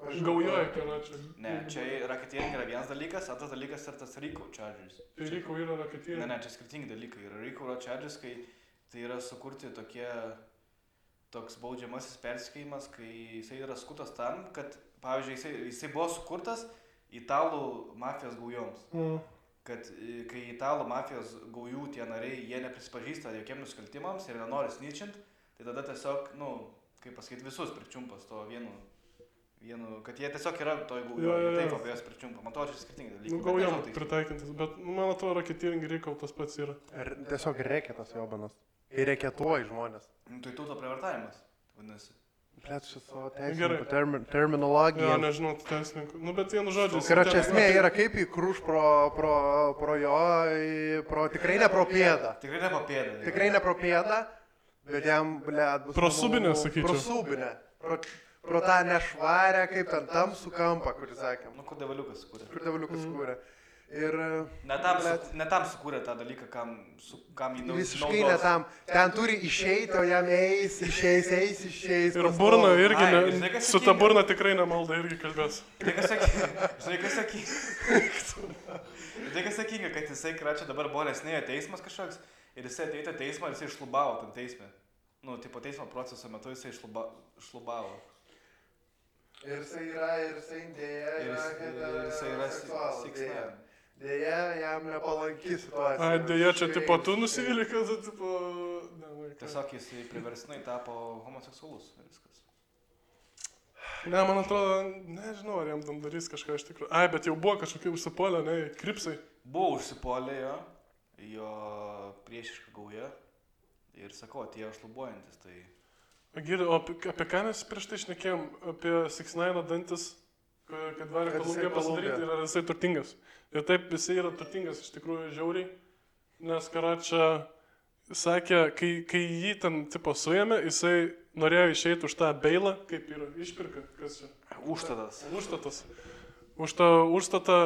gaujoja, karačia. Ne, čia racketeering yra vienas dalykas, antras dalykas yra tas RICO charges. Tai RICO yra racketeering? Ne, čia skirtingi dalykai. RICO charges, kai tai yra sukurti toks baudžiamasis persekiojimas, kai jisai yra sukurtas tam, kad, pavyzdžiui, jisai buvo sukurtas italų mafijos gaujoms. Kad kai italų mafijos gaujų tie nariai, jie neprisipažįsta jokiem nusikaltimams ir nenori snitchint, tai tada tiesiog, kaip pasakyti, visus pričiumpas to vienu, kad jie tiesiog yra toj gaujoje, taip apie jas pričiumpa. Man to čia skirtingi dalykai. Gaujom pritaikintis, bet man atrodo, racketeering RICO tas pats yra. Tiesiog reketas jobanas. Ir reketuoji žmonės. Tai tūto prievartavimas, vadinasi. Blet, šis savo teisininkų terminologija. Jo, nežinau, teisininkų. Nu, bet vienu žodžiu. Karočią esmė yra kaip įkrūš pro jo, tikrai ne pro pėdą. Tikrai ne pro pėdą, bet jam, blet, bus... Pro subinę, sakyčiau. Pro subinę. Pro tą nešvarę, kaip ten tamsų kampą, kurį sakėm. Nu, kur devaliukas sukūrė. Ir... Ne tam sukūrė tą dalyką, kam jį naudos. Visiškai ne tam. Ten turi išeiti, o jam išeis. Ir burna irgi, su ta burna tikrai nemalda irgi kalbės. Žinai, kas sakinga, kad jisai, kračia, dabar buvo nesnėjo teismas kažkoks ir jisai ateitė teismą ir jisai išlubavo tam teisme. Nu, tipo teismo proceso metu jisai išlubavo. Ir jisai dėja yra 6ix9ine. Dėja, jam nepalanki situacija. Dėja, čia tipo tu nusivylė, kad tipo... Tiesiog jisai priverstinai tapo homoseksualus ir viskas. Ne, man atrodo, nežinau, ar jam tam darys kažką iš tikrųjų. Bet jau buvo kažkokie užsipolę, ne, kripsai. Buvo užsipolę jo priešiška gauja ir sakau, atėjo šlubuojantis, tai... Giri, o apie ką mes prieš tai šnekėjom? Apie 6ix9ine dantis, kad varė Kolumbija pasidaryti ir ar jisai turtingas. Ir taip, jisai yra turtingas iš tikrųjų žiauriai, nes karačia sakė, kai jį ten tipo suėmė, jisai norėjo išeiti už tą beilą, kaip yra išpirka, kas čia? Užstatas. Už tą užstatą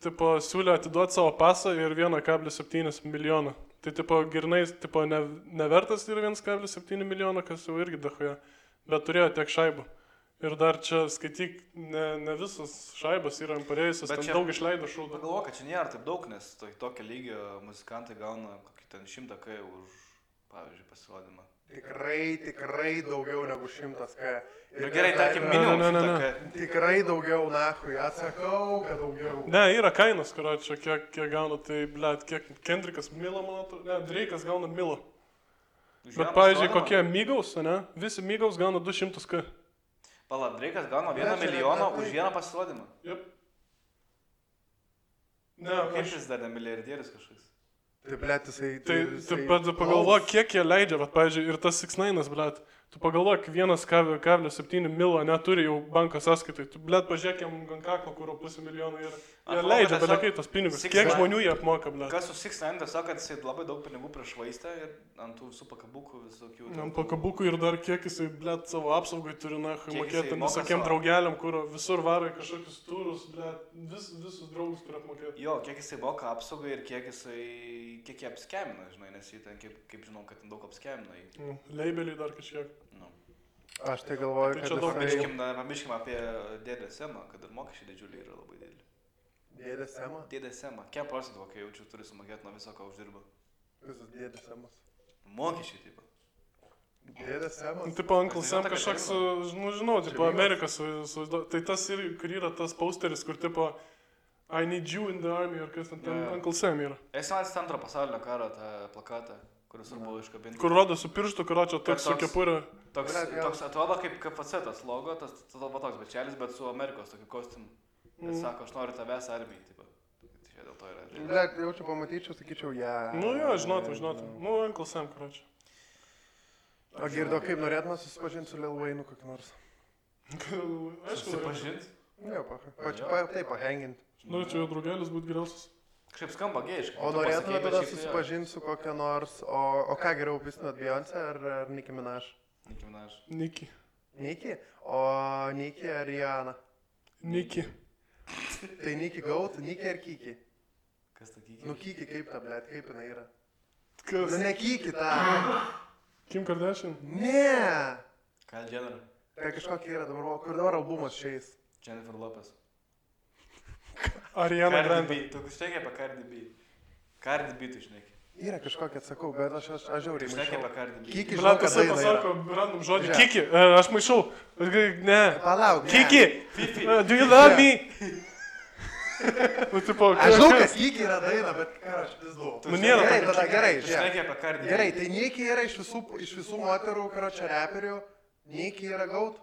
tipo siūlė atiduoti savo pasą ir 1,7 milijoną. Tai tipo girnais tipo nevertas yra 1,7 milijono, kas jau irgi dahoja, bet turėjo tiek šaibų. Ir dar čia skaityk, ne visas šaibas yra parėjusios, ten daug išleido šūdą. Pagalvoju, kad čia nėra taip daug, nes tokio lygio muzikantai gauna kokį ten 100 K už, pavyzdžiui, pasirodymą. Tikrai daugiau negu 100 K. Ir gerai, tarkim, minimum 100 K. Tikrai daugiau, nahui, atsakau, kad daugiau. Ne, yra kainos, karočią, kiek gauna, tai, blet, kiek Kendrickas Milo, man atrodo, ne, Drake'as gauna Milo. Bet, pavyzdžiui, kokie Migos, ne, visi Migos gauna 200 K. Pala, Drake'as gauna 1 milijoną už vieną pasirodymą. Jep. Kaip jis dar milijardierius kažkoks? Tai, blet, jisai... Tai pagalvok, kiek jie leidžia, bet, pavyzdžiui, ir tas 6ix9inas, blet. Tu pagalvok, 1,7 milo neturi jau banko sąskaitai. Tu, blet, pažiūrėk jam ant kaklo, kur 500 milijonų yra. Jie leidžia belekai tos pinigus. Kiek žmonių jie apmoka, blet. Kas su 6ix9ine tiesiog, kad jisai labai daug pinigų prišvaistė ir ant tų visų pakabukų visokių. Ant pakabukų ir dar kiek jisai, blet, savo apsaugai turi, mokėti visokiem draugeliam, kur visur varo į kažkokius turus, blet, visus draugus turi apmokėti. Jo, kiek jisai moka apsaugai ir kiek jisai kiek jie apskemina, žinai, nes jie ten, kaip žinau, kad ten daug apskemina jį. Leibeliai dar kažkiek. Nu. Aš tai galvoju, Tai kad čia daug Pamirškim apie dėdę Semą, kad ir mokesčiai didžiuliai yra labai dideli. Dėdė Sema? Dėdę Semą. Kiek procentų, kai jaučiu, turi sumokėti nuo viso, ką uždirba? Visas dėdė Semas. Mokesčiai, taip. Dėdė Semas? Tipo, Uncle Sam kažkoks, žinau, tipo, Amerikas, tai tas ir, kur yra tas posteris, kur tipo, I need you in the army, ar kas ten Uncle Sam yra. Esi matęs antro pasaulinio karo tą plakatą, kuris buvo iškabinti. Kur rodo su pirštu, kur čia toks su kepurė. Toks atrodo kaip KFC tas logo, tas toks bečelis, bet su Amerikos tokiu kostiumu. Bet sako, aš noriu tavęs armijai, taip. Tai čia dėl to yra. Blet, jaučiu pamatyčiau, sakyčiau, Nu jo, žinotum. Nu, Uncle Sam, kur čia. O girdo, kaip norėtume susipažinti su Lil Wayne'u kokį nors? Aišku, Susipažint? Ne, taip, pahengint. Norėčiau jo draugelis būti geriausias. Kažkaip skamba gėjiškai. O norėtume tada susipažinti su kokia nors, o ką geriau pistinat, Beyoncé ar Nicki Minaj? Nicki Minaj. Nicki. Nicki? O Nicki ar Rihanna? Nicki. Tai Nicki Goat, Nicki ar Kiki? Kas ta Kiki? Nu Kiki kaip ta, blet, kaip jinai yra? Kas? Nu ne Kiki ta. Kim Kardashian? Ne. Kyle Jenner. Tai kažkokia yra dabar, kur dabar albumas šiais. Jennifer Lopez. Ariana Grande. Tu šneki apie Cardi B. Cardi B tu šneki. Yra kažkokia, atsakau, bet aš žiauriai Šneki apie maišau. Cardi B. Kiki, Blet, žinau, kad jisai daina pasako yra. random žodį. Žiūrėk. Kiki, aš maišau. Ne. Palauk, ne. Kiki, do you love me? Nu, tipo, Aš žinau, kad Kiki yra daina, bet ką aš vis duodu. Nu, nėra Gerai, tokio tada gerai, Tu žiūrėk. šneki apie Cardi B. Gerai, tai Nicki yra iš visų moterų, karočią reperių. Nicki yra Goat.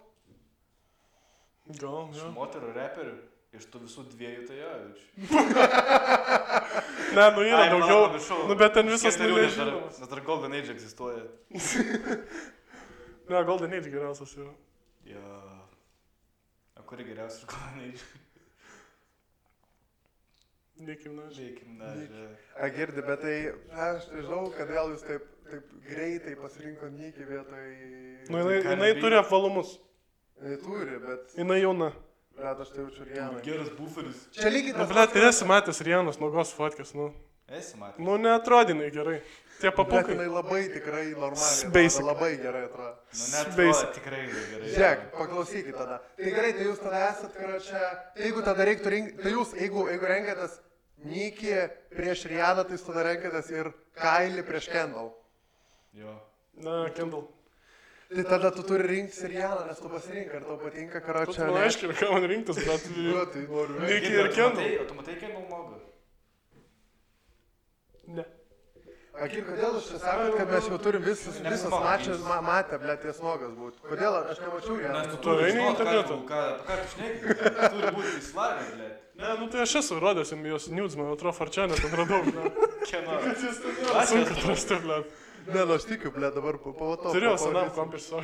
Gal, Iš ne. moterų reperių. Iš tų visų dviejų tai jo, jaučiu. Ne, nu yra Ai, daugiau. palauk, pamiršau. Nu, bet ten visas Keturių, nes dar- nuležimas. Nes dar Golden Age egzistuoja. Ne, Golden Age geriausias yra. Jo. O kuri geriausia iš Golden Age? Nicki Minaj. Žiūrėkim, na. A girdi, bet tai aš nežinau, kodėl jūs taip greitai pasirinko Nicki vietoj... Nu, Tai jinai turi apvalumus. Jinai turi, bet... Jinai jauna. Blet, aš tai jaučiu Rihanna. Geras buferis. Čia lygiai Nu, tas... blet, tai esi matęs Rianos nuogos fotkės, nu. Esi matęs. Nu, neatrodinai gerai. Tie Blet, papukai. jinai labai tikrai normaliai. Basic. atrodo, Labai gerai atrodo. Nu, net Basic. tikrai gerai. Žiūrėk, paklausykit tada. Tai gerai, tai jūs tada esat, karočią... Tai jeigu tada reiktų rinkti... Tai jūs, jeigu renkatės Nicki prieš Rihanną, tai jūs tada renkatės ir Kylie prieš Kendall. Jo. Na, Kendall. Tai tada tu turi rinktis ir Rihanną, nes tu pasirink, ar tau patinka, Tu karočią... man aiškiai, ką man rinktis, bet... Nu, tai noriu. Nicki ir Kendall. O tu matai Kendall nuogą? Ne. Akir, kodėl jūs čia sakot, kad mes jau turim visas mačas matę, blėt, ties nogas būti? Kodėl aš nemačiau ją? Nes tu eini į internetą. Ką tu šneki? Turi būti įsilavinęs, blėt. Ne, nu tai aš esu rodęs jums jos nudes, man atrodo, Farčianė ten radau, ne. Kieno? Sunku atrasti, ble. Ne, nu aš tikiu, blėt, dabar pamatau. Turėjau senam kompirsą.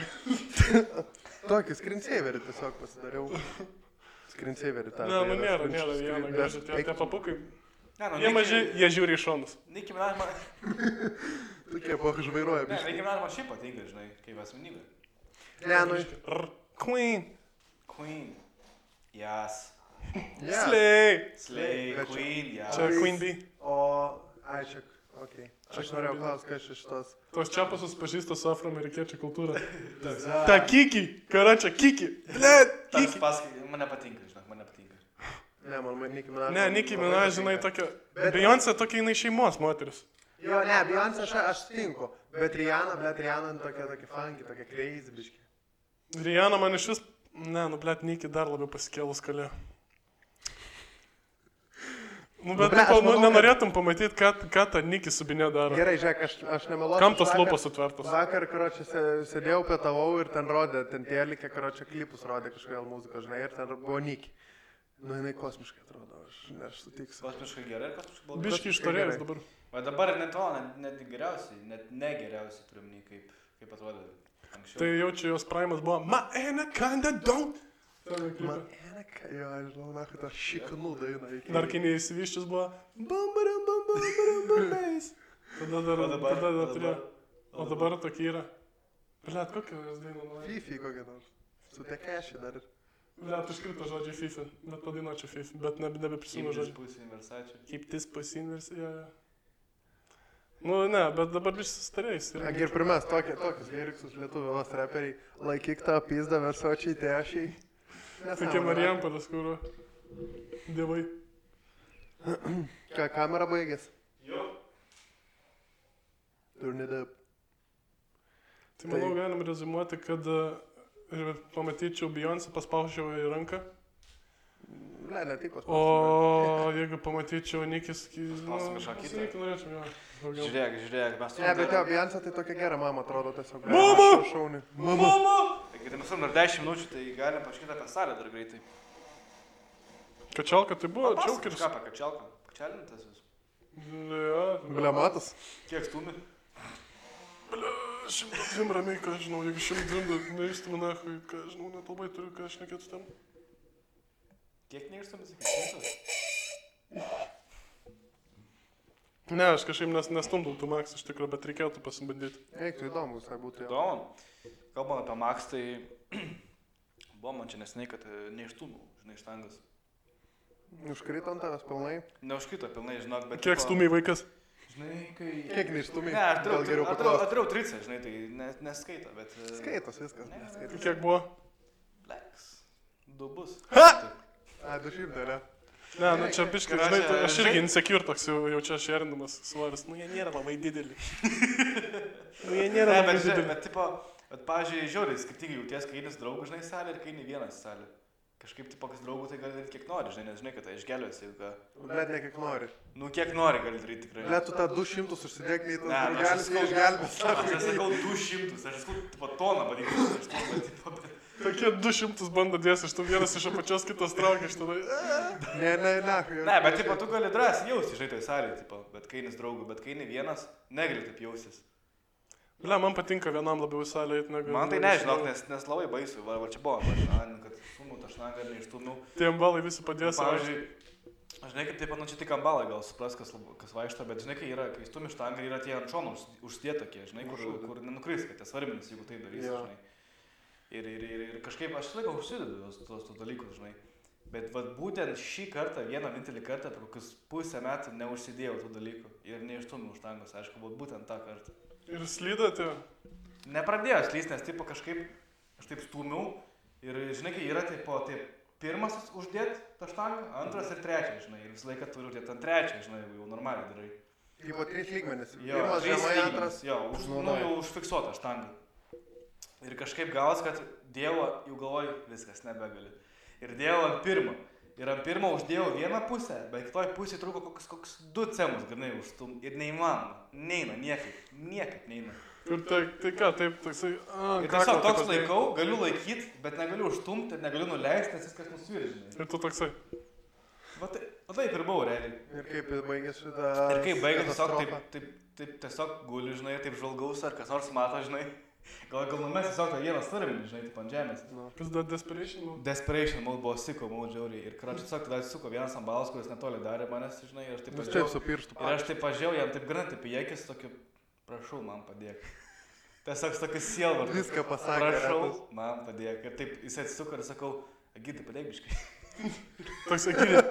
Tokį screensaverį tiesiog pasidariau. Screensaverį tą. Ne, nu nėra viena gražia, tie papukai. Jie maži, jie žiūri į šonus. Nicki Minaj man... Tokie žvairuoja, Ne, biškai. Nicki Minaj man šiaip patinka, žinai, kaip asmenybė. Ne, nu... Queen. Queen. Jas. Slay. Slay, Bet čia- Queen, jas. Čia Queen Bee. O, ai, čia, okei. Aš norėjau klausti, kas iš tos. Tos čiapasus pažįsta su afroamerikiečių kultūra. Ta Kiki, karačia Kiki. Ble, Tas Kiki. pasakai, man nepatinka, žinok, man nepatinka. Ne, man Nicki Minaj. Ne, Nicki Minaj, žinai, tokia... Bet- Beyoncé tokia jinai šeimos moteris. Jo, ne, Beyoncé aš sutinku. Bet Rihanna, blėt, Rihanna tokia funky, tokia crazy, biškai. Rihanna man iš vis... Ne, nu, blet, Nicki dar labiau pasikėlus kalė. Nu, bet blet, aš manau, nenorėtum pamatyti, ką ta Nicki su Binė daro. Gerai, žiūrėk, aš nemeluosiu. Kam tos Vakar- lūpos sutvertos? Vakar, karočią, sėdėjau, pietavau ir ten rodė, ten tėlikė, karočią, klipus rodė kažkodėl muziką, žinai, ir ten buvo Nicki. Nu, jinai kosmiškai atrodo, aš sutiksiu. Kosmiškai gerai ir kosmiškai blogai. Biški ištorėjus dabar. O dabar net to, net geriausiai, net negeriausiai turim nei kaip atrodė anksčiau. Tai jaučiu, jos primas buvo My anaconda don't. Man, jo, aš žinau, na, kad aš šiknų dainą iki. Dar kai neįsivyščius buvo bam. Tada dar turėjo. O dabar tokia yra. Blet, kokia jos daina nuoja? Fifi kokia nors. Su Tekeši dar. Blet, iškrito žodžiai FIFA. Bet padainuočiau FIFA. Bet nebeprisimenu Keep this žodžių. pussy in Versace. Keep this pussy in Versace. Nu, ne, bet dabar visi sustarėjus. Ir primės tokius lyriksus lietuvos reperiai. Laikyk tą pizdą versočiai tešiai. Tokie Marijampolės, kur dievai. Ką, kamera baigės? Jo. Turnidap. Tai manau, galim rezumuoti, kad pamatyčiau Beyoncé, paspaužiau į ranką. Ne tik paspaužiau. O jeigu pamatyčiau Nikis... Paspausiu kažką kitą. Nikį norėčiau, jo. Daugiau. Žiūrėk, mes Ne, bet jo, Beyoncé tai tokia gera mama atrodo tiesiog. Mama! Šauni. Mama! Taigi, tai mes turim dar 10 minučių, tai galim paškyti apie salę dar greitai. Kačialka tai buvo, Papasakok čiaukeris. kažką apie kačialką. Kačialintas vis. Ja, Blematas. Kiek stumi? 102 ramiai, ką žinau, jeigu 102 neįstumu nahui, ką žinau, net labai turiu, ką aš nekėtų tam. Kiek neištumi, sakai? Ne, aš kažkaip nestumdau tų Max iš tikrųjų, bet reikėtų pasibandyti. Eiktų įdomu, visai būtų jo. Įdomu. Kalbant apie Max, tai buvo man čia neseniai, kad neištumau, žinai, štangas. Užkrito ant tavęs pilnai. Neužkrito pilnai, žinok, bet... Kiek stumiai vaikas? Žinai, kai... Kiek neištumai? Ne, aš Gal geriau paklausti. atdariau tricę, žinai, tai neskaito, bet... Skaitos viskas, neskaitos. Kiek buvo? Leks. 2 bus. A, 200, ne? Ne, nu čia biškai, žinai, tai aš irgi insecure toks jau čia šerindamas svoris. Nu jie nėra labai dideli. Nu jie nėra labai dideli. Bet, tipo, pavyzdžiui, žiauriai, skirtingai jauties, kai eini su draugu, žinai, salė ir kai eini vienas salė. Kažkaip, tipo, kas draugų, tai gali daryti kiek nori, žinai, nes žinai, kad tai išgelbės, jeigu ką. Bet ne kiek nori. Nu, kiek nori gali daryti tikrai. Bet tu tą 200 užsidėk, nei tas Ne, aš draugelis sakau- išgelbės. Aš nesakau 200, aš sakau, tipo, toną vadinasi, aš tipo, bet... Tokie 200 bando dėsi, iš tų vienas iš apačios, kitas traukia iš tada. Ne. Ne, bet, tipo, tu gali drąsiai jausti, žinai, toj salėje, tipo, bet kai eini su draugu, bet kai eini vienas, negali taip jausis. Ble, man patinka vienam labiau į salę eiti negu... Man tai nežinau, nes labai baisu, va čia buvo, kad sumu tą šnagą ir neištumiau. Tie ambalai visi padės. Pavyzdžiui, aš žinai, kaip taip, nu čia tik ambalai gal supras, kas vaikšto, bet žinai, kai stumi štangą yra tie ant šonų užsidėję tokie, žinai, kur nenukris, kad tie svarmenis, jeigu tai darysi, Jo. žinai. Ir kažkaip aš laiko užsidedu tos dalykus, žinai. Bet vat būtent šį kartą, vienintelį kartą, per kokius pusę metų neužsidėjau tų dalykų ir neištumiau štangos, aišku, būtent tą kartą. Ir slydate. Nepradėjo slysti, nes tipo kažkaip aš taip stūmiau ir žinai, kai yra taip pirmas uždėt tą štangą, antras ir trečias, žinai, ir visą laiką turiu uždėti ant trečią, žinai, jau normaliai darai. Tipo 3 lygmenis. Jo, Pirmas 3 žemai, lygmenis, antras. jo, jau užfiksuota štanga. Ir kažkaip gavos, kad dėjau, jau galvoju, viskas, nebegali. Ir dėjau ant pirmo. Ir ant pirmo uždėjau vieną pusę, bet kitoj pusėje trūko koks 2 cemus, grinai užstum. Ir neįmanoma. Neina, niekaip neina. Ir tai ką, taip, toksai... Ir tiesiog toks laikau, galiu laikyti, bet negaliu užstumti, negaliu nuleisti, nes viskas nusviria, žinai. Ir tu toksai. Va taip ir buvo, realiai. Ir kaip baigėsi šitą... Ir kaip baigėsi, tiesiog taip tiesiog guli, žinai, taip žvalgaus, ar kas nors mato, žinai. Gal numės tiesiog tą vieną starminį, žinai, taip ant žemės. Kas dar Desperation Mode? Desperation Mode buvo siko, mode žiauriai. Ir karočiui tiesiog tada atsisuko vienas ambalas, kuris netoli darė manęs, žinai, ir aš taip Taip pažiūrėjau. su pirštu. Ir aš taip pažiūrėjau, jam taip gana, taip į akis, tokiu, prašau, man padėk. Tiesiog tokius sielvartus. Viską pasakė. Prašau, retas. man padėk. Ir taip jis atsisuko ir sakau, Agidai, padėk biškai. Toks Agirė.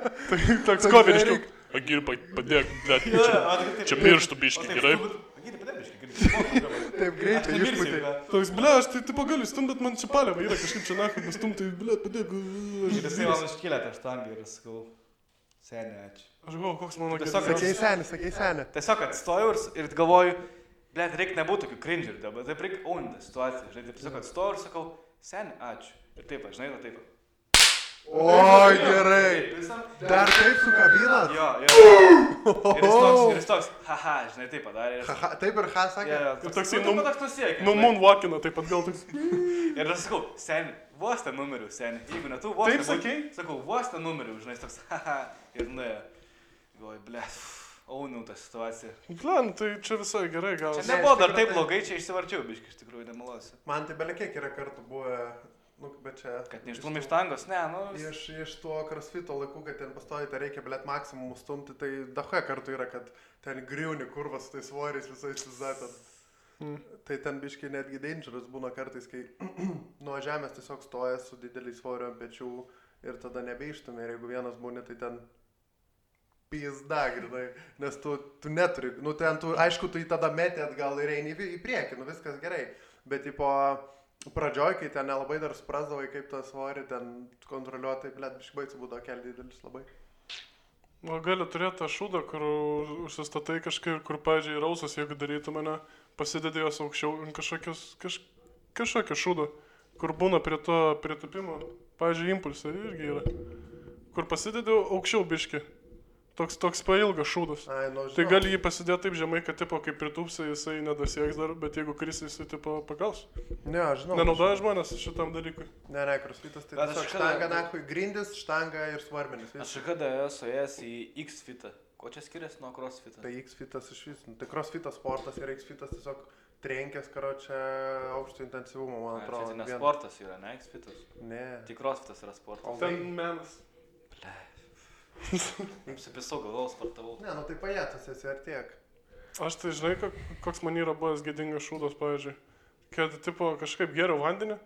Toks koveriškiau. Agirė, padėk, bet čia pirštų biškai, gerai? Agidai, padėk biškai. Taip greitai išpūtė. Toks, ble, aš tai tipo galiu stumt, bet man čia paliava yra kažkaip čia nakai, bet stumt, tai ble, padėk. Ir jisai man iškėlė tą štangą ir sakau, seniai, ačiū. Aš galvoju, koks mano Tiesiog geriausias. Sakei senį. Tiesiog atstojau ir galvoju, blėt, reikia nebūti tokių cringerį, bet taip reikia ownti situaciją, žinai, taip tiesiog atstojau ir sakau, seniai, ačiū. Ir taip, žinai, taip. Oi, gerai. Visam. Dar taip sukabinat? Jo. Ir jis toks, haha, žinai, taip padarė. Taip ir ką sakė? Ir toksai, toks nusiekė. Nu, moonwalkina, taip pat gal toks. Ir aš sakau, seniai, vos tą numerių, seniai. Jeigu ne tu, vos Taip sakei? Sakau, vos tą numerių, žinai, jis toks, haha. Ir nuėjo. Galvoju, blėt, auniau tą situaciją. Ble, nu, tai čia visai gerai gal. Čia nebuvo dar taip blogai, čia išsivarčiau, biškai, iš tikrųjų, nemalosiu. Man tai belekiek yra kartų buvę, nu, bet čia... Kad neištumė štangos, ne, nu... Iš tuo crossfito laikų, kad ten pastoji, tai reikia, blėt, maksimum stumti, tai dahoje kartų yra, kad ten griūni kurvas su tais svoriais visais vizatant. Tai ten biškai netgi dangerous būna kartais, kai nuo žemės tiesiog stoja su dideliais svoriu ant pečių ir tada nebeištumė. Ir jeigu vienas būni, tai ten pizda, grinai, nes tu neturi, nu ten tu, aišku, tu į tada metį atgal ir eini į priekį, nu viskas gerai, bet tipo pradžioj, kai ten nelabai dar suprasdavai, kaip tą svorį ten kontroliuoti, tai blėt, biškai baisų būdavo keli didelis labai. O gali turėti tą šūdą, kur užsistatai kažkaip, kur, pavyzdžiui, rausas, jeigu darytų mane, pasidedi jos aukščiau kažkokio šūdo, kur būna prie to pritupimo, pavyzdžiui, impulsai irgi yra, kur pasidedi aukščiau biški. Toks pailgas šūdas. Ai, nu, Tai gali jį pasidėti taip žemai, kad tipo, kaip pritūpsi, jisai nedasieks dar, bet jeigu krisi, jisai tipo pagaus. Ne, aš žinau. Nenaudoja žmonės šitam dalykui. Ne, crossfitas tai Bet tiesiog aš štanga, nakui, grindis, štanga ir svarmenis. Aš kada esu ėjęs į X-fitą. Ko čia skiriasi nuo crossfitą? Tai X-fitas iš vis. Tai crossfitas sportas ir X-fitas tiesiog trenkės, karočią, aukšto intensyvumo, man atrodo. Tai ne sportas yra, ne X-fitas. Ne. Tik crossfitas yra sportas. Ten menas. Jums apisau galvos sportavau. Ne, nu tai pajėtas esi ar tiek. Aš tai žinai, koks man yra buvęs gėdingas šūdas, pavyzdžiui. Kad tipo kažkaip geriau vandenį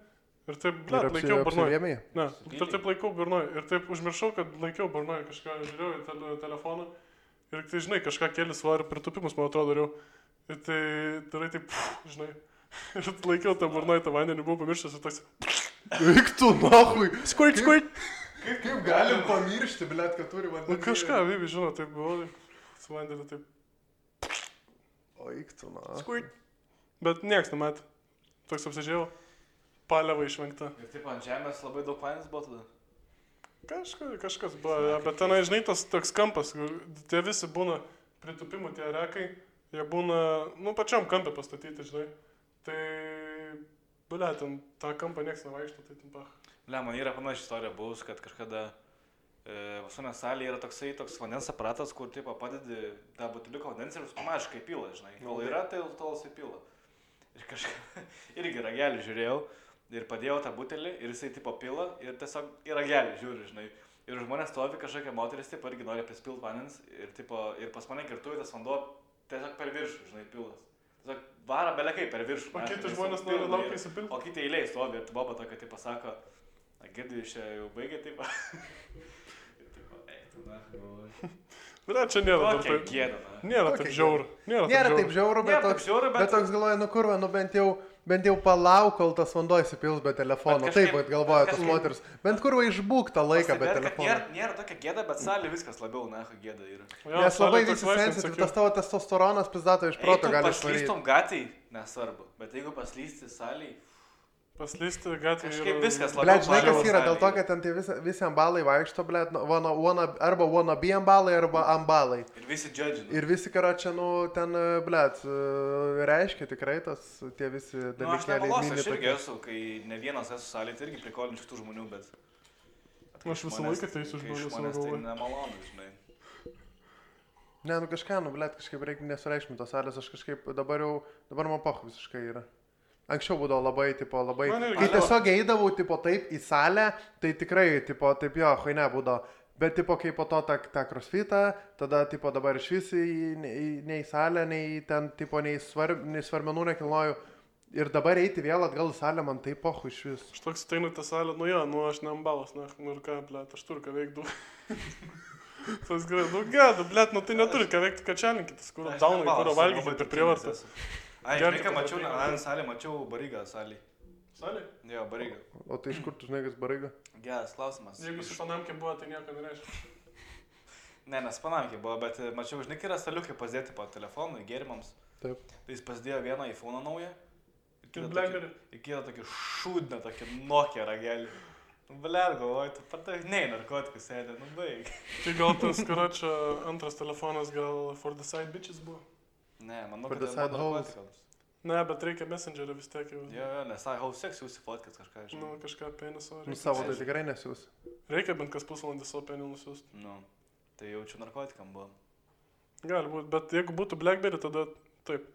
ir taip, laikiau burnoj. Ne, ir taip laikiau burnoj. Ir taip užmiršau, kad laikiau burnoj kažką, žiūrėjau į telefoną. Ir tai, žinai, kažką keli svarį pritupimus, man atrodo, dariau. Ir tai darai taip, žinai. Ir laikiau tą burnoj, tą vandenį, buvau pamiršęs ir toks. Eik tu, nahui. Skurt. Kaip galim pamiršti, blėt, kad turi vandenį? Nu kažką, Vivi, žinau, taip buvo, su vandeniu taip. O eik tu, nahui. Skurt. Bet nieks nematė. Toks apsižiūrėjau. Paliava išvengta. Ir taip ant žemės labai daug vandens buvo tada. Kažkas buvo, bet tenai, žinai, tas toks kampas, tie visi būna pritupimų, tie rekai, jie būna, nu, pačiam kampė pastatyti, žinai. Tai, bulia, ten tą kampą nieks nevaikšto, tai ten pach. Bulia, man yra panaši istorija buvus, kad kažkada vasuonės salėje yra toks vandens aparatas, kur, tipo, padedi tą butiliuką vandens ir pamažiškai pila, žinai. Kol yra, tai tol jisai pila. Ir kažką, irgi ragelį žiūrėjau. Ir padėjau tą butelį ir jisai tipo pila ir tiesiog į ragelį žiūri, žinai. Ir žmonės stovi kažkokia moteris, tipo, irgi nori prispilt vandens ir, tipo, ir pas mane girtuvė tas vanduo tiesiog per viršų, žinai, pilas. Tiesiog vara belekai per viršų. O kiti žmonės nori laukia įsipilti. O kiti eiliai stovi ir tu boba tokia, tipo, sako, girdi, iš čia jau baigė, tipo. Ir tipo, tu na, galvoju. Bet čia nėra taip gėda, na. Nėra taip žiauru. Nėra taip žiauru, bet toks galvoja, nu kurva, nu bent jau palauk, kol tas vanduo įsipils be telefono. Taip, bet galvoja tas moteris. Bent kurva išbūk tą laiką be telefono. Nėra tokia gėda, bet salė viskas labiau, na, gėda yra. Nes labai visi sensityvi, tas tavo testosteronas pizdato iš proto gali išvaryti. Paslystum gatvėj, nesvarbu, bet jeigu paslysti salėj... Paslysti gatvėj kažkaip viskas labiau. Blet, žinai, kas yra, dėl to, kad ten tai visi ambalai vaikšto, blet, arba wannabe ambalai, arba ambalai. Ir visi judgina. Ir visi, karočią, nu, ten, blet, reiškia tikrai tas, tie visi dalykėliai. Nu, aš nemalosiu, aš irgi esu, kai ne vienas esu salėj, tai irgi prikolinčių tų žmonių, bet... Aš visą laiką teisiu žmonės, tai nemalonu, žinai. Ne, nu kažką, nu, blet, kažkaip reikia nesureikšminti tos salės, aš kažkaip dabar man poch visiškai yra. Anksčiau būdavo labai, kai tiesiog eidavau, tipo, taip į salę, tai tikrai, tipo, taip jo, ne būdavo. Bet, tipo, kai po to tą crossfitą, tada, tipo, dabar iš visi nei į salę, nei ten, tipo, nei svarmenų nekilnoju. Ir dabar eiti vėl atgal į salę, man taip pochu iš vis. Aš toks ateinu į tą salę, nu jo, nu aš ne ambalas, nu ir ką, blėt, aš turiu ką veikti. Tas gerai, nu gėda, blėt, nu tai neturi ką veikti, kačialinkitas, kur daunai, kur valgyti per prievartą. Ai, žinai, ką mačiau, salė, mačiau Barygą salį. Salį? Jo, Barygą. O tai iš kur tu žinai, kas Baryga? Geras klausimas. Jeigu su Panamkė buvo, tai nieko nereiškia. Ne, nes Panamkė buvo, bet mačiau, žinai, yra staliukai pasidėti po telefonui, gėrimams. Taip. Tai jis pasidėjo vieną iPhone naują. Ir Blackberry. Ir kitą tokį šūdną, tokį Nokia ragelį. Blet, galvoju, tu patai, nei narkotikus sėdė, nu baig. Tai gal tas, karočią, antras telefonas gal For the Side Bitches buvo? Ne, manau, kad tai buvo narkotikams. Ne, bet reikia Messengerio vis tiek jau. Jo, nes how sex jūsų fotkat kažką, žinai. Nu, kažką peniso. Nu, savo tai tikrai nesiūs. Reikia bent kas pusvalandį savo penį nusiųst. Nu, tai jaučiu narkotikam buvo. Gali būt, bet jeigu būtų Blackberry, tada taip.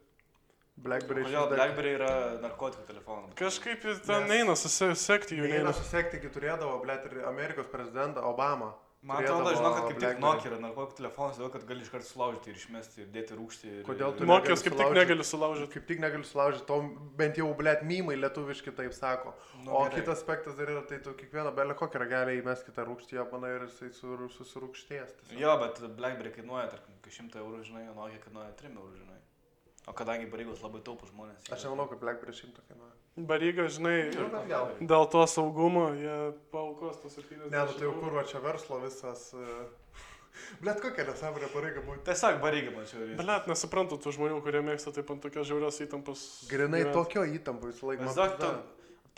Blackberry. Kodėl Blackberry yra narkotikų telefonas? Kažkaip ten neina susekti jų. Neina susekti, kai turėdavo, blet, ir Amerikos prezidentą Obama. Man atrodo, žinau, kad kaip tik BlackBerry. Nokia yra narkotikų telefonas, todėl kad gali iškart sulaužyti ir išmesti ir dėti rūkštį. Kodėl tu Nokijos kaip tik sulaužyt? negali sulaužyti. Kaip tik negaliu sulaužyti, to bent jau, blėt, mymai lietuviški taip sako. Nu, O gerai. kitas aspektas dar yra, tai tu kiekvieną belę kokią ragelį įmes kitą rūkštį, japaną ir jisai susirūkštės. Jo, bet BlackBerry kainuoja, tarkim, 100 eurų, žinai, o Nokia kainuoja 3 eurų, žinai. O kadangi Barygos labai taupų žmonės. Aš nemanau, kad BlackBerry 100 kainuoja. Baryga, žinai, Nu, bet gal. dėl to saugumo jie paukos tos 70. Ne, nu tai jau kur va čia verslo visas... Blėt, kokia nesąmonė pareiga būti. Tiesiog Barygą mačiau. Blet, nesuprantu tų žmonių, kurie mėgsta taip ant tokios žiaurios įtampos. Grinai gyvent. tokio įtampo visą laiką. Maždaug tu,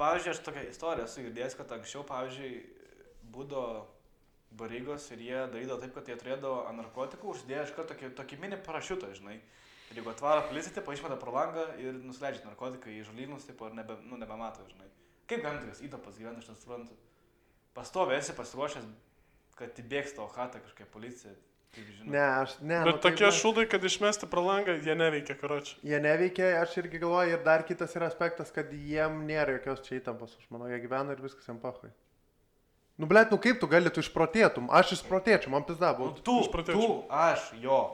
pavyzdžiui, aš tokią istoriją esu girdėjęs, kad anksčiau, pavyzdžiui, būdavo Barygos ir jie darydavo taip, kad jie turėdavo ant narkotikų uždėję iš karto tokį mini parašiutą, žinai. Ir jeigu atvaro policija, tipo, išmeta pro langą ir nusileidžia narkotikai į žolynus, tipo, ir nebemato, žinai. Kaip galima tokias įtampas gyventi, aš nesuprantu. Pastovi esi pasiruošęs, kad įbėgs tavo chatą kažkokia policija. Kaip žinai. Ne, aš... Ne, Bet nu, tokie taip, šūdai, kad išmesti pro langą, jie neveikia, karoči. Jie neveikia, aš irgi galvoju, ir dar kitas yra aspektas, kad jiem nėra jokios čia įtampos. Aš manau, jie gyvena ir viskas jiem pahui. Nu, blėt, nu kaip tu gali, tu išprotėtum? Aš išprotėčiau, man pizda Nu, būtų. tu, aš, jo.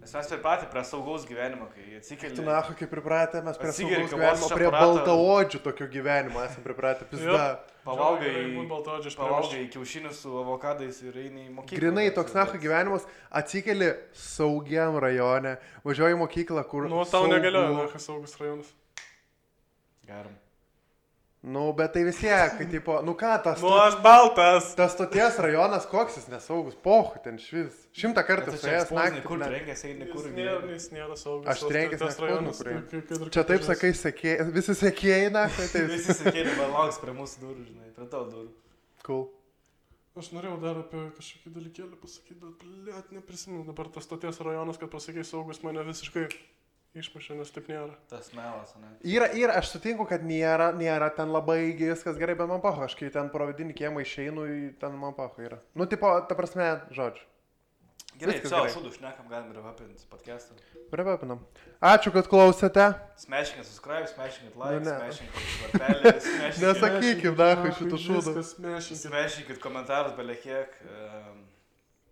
Nes mes pripratę prie saugaus gyvenimo, kai atsikeli. Tu nahu, kaip pripratę, mes prie Atsigeri saugaus kavos gyvenimo, iš prie aparato. baltaodžių tokio gyvenimo esame pripratę, pizda. Pavalgai kiaušinius su avokadais ir eini į mokyklą. Grinai toks nahu gyvenimas, atsikeli saugiam rajone, važiuoji į mokyklą, kur... Nu, tau negalioja, nakas saugus rajonas. Geram. Nu, bet tai vis tiek, kai tipo, nu ką, tas... Nu, aš baltas. Tas stoties rajonas, koks jis nesaugus, pohu, ten švis. 100 kartų su jas naktį. Kur ne. trenkėsi, eini kur Jis nėra saugus. Aš trenkęs tas rajonas. kur. Čia taip sakai, visi sekėjai, na, tai taip. Visi sakėlė, man lauks prie mūsų durų, žinai, prie tavo durų. Cool. Aš norėjau dar apie kažkokį dalykėlį pasakyti, bet, blėt, neprisimenu. Dabar tas stoties rajonas, kad pasakai saugus, mane visiškai išmušė, nes taip nėra. Tas melas, ne? Yra, aš sutinku, kad nėra ten labai viskas gerai, bet man paho, aš kai ten pro vidinį kiemą išeinu, ten man paho yra. Nu, tipo, ta prasme, žodžiu. Gerai, Viskas savo gerai. šūdų šnekam, galim ir apinti podcastą. Privepinam. Ačiū, kad klausėte. Smashinkit subscribe, smashinkit Nu, like, ne. smashinkit varpelį, smashinkit... Nesakykim, dahu, šitų šūdų. Smashinkit komentarus belekiek.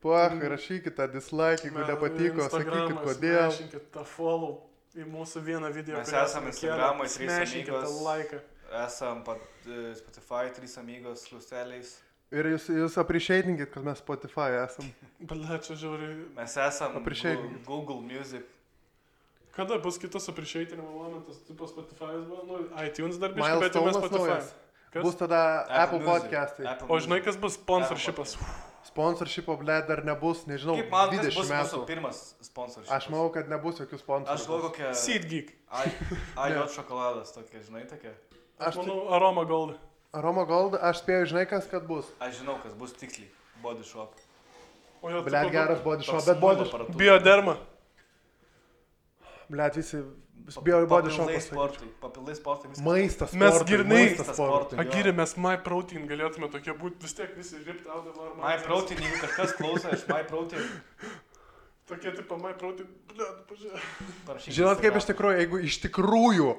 Puach, rašykite dislike, jeigu nepatiko, sakykit kodėl. Smašinkit tą follow į mūsų vieną video. Mes esam Instagram'oj, 3 Smašinkit tą amigos. laiką. Esam Spotify, 3 amigos, klusteliais. Ir jūs appreciatinkit, kad mes Spotify esam. Bale, čia žiauriai. Mes esam Appreciate. Google Music. Kada bus kitas appreciatinimo momentas? Tipo Spotify'as buvo, nu, iTunes dar biškai, bet jau mes Milestone'as Spotify. naujas. Kas? Bus tada Apple Music. podcastai. Apple O žinai, Music. kas bus sponsorshipas? Sponsorshipo, ble, dar nebus, nežinau, Kaip man 20 bus mūsų metų. pirmas sponsorius? Aš manau, kad nebus jokių Aš sponsorų. galvoju kokią... Seedgeek. Ajot šokoladas tokia, žinai, tokia. Aš manau, Aroma Gold. Aroma Gold, aš spėjau, žinai, kas kad bus. Aš žinau, kas bus tiksliai. Body shop. O jo, Ble, geras body shop, Toks bet body muilo shop. aparatūra. Bioderma. Ble, visi bio body Papildai shopas. sportui. Papildai sportui viskas. Maistas, Mes sportui, grynai- maistas, sportui. Jo. Agirė, mes MyProtein galėtume tokie būti, vis tiek visi ripped out of our My Protein, jeigu kažkas klauso iš My Protein, Tokie tipo MyProtein, ble, pažiūrėk. parašykit. Žinot, kaip iš tikrųjų, jeigu iš tikrųjų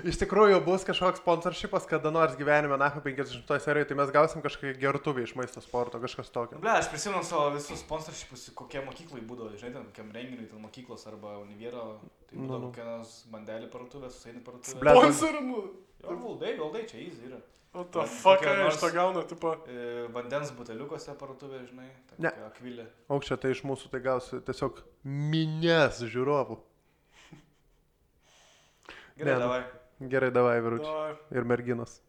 iš tikrųjų bus kažkoks sponsorshipas kada nors gyvenime, na, 50 serijoje, tai mes gausim kažkokį gertuvį iš maisto sporto, kažkas tokio. Ble, aš prisimenu savo visus sponsorshipus, kokie mokyklai būdavo, žinai, ten kokiam renginiui, ten mokyklos arba univero, tai būdavo kokia nors bandelį parduotuvė, susaini parduotuvė. Ble, Sponsorimu. Jo, valdai, čia easy yra. O tą Kokia fucką nors- iš to gauna, tipo. Vandens buteliukose parduotuvė, žinai, Ne. tokia akvilė. Aukščia tai iš mūsų tai gausi tiesiog minės žiūrovų. Gerai, Ne, nu. davai. Gerai, davai, vyručiai. Davai. Ir merginos.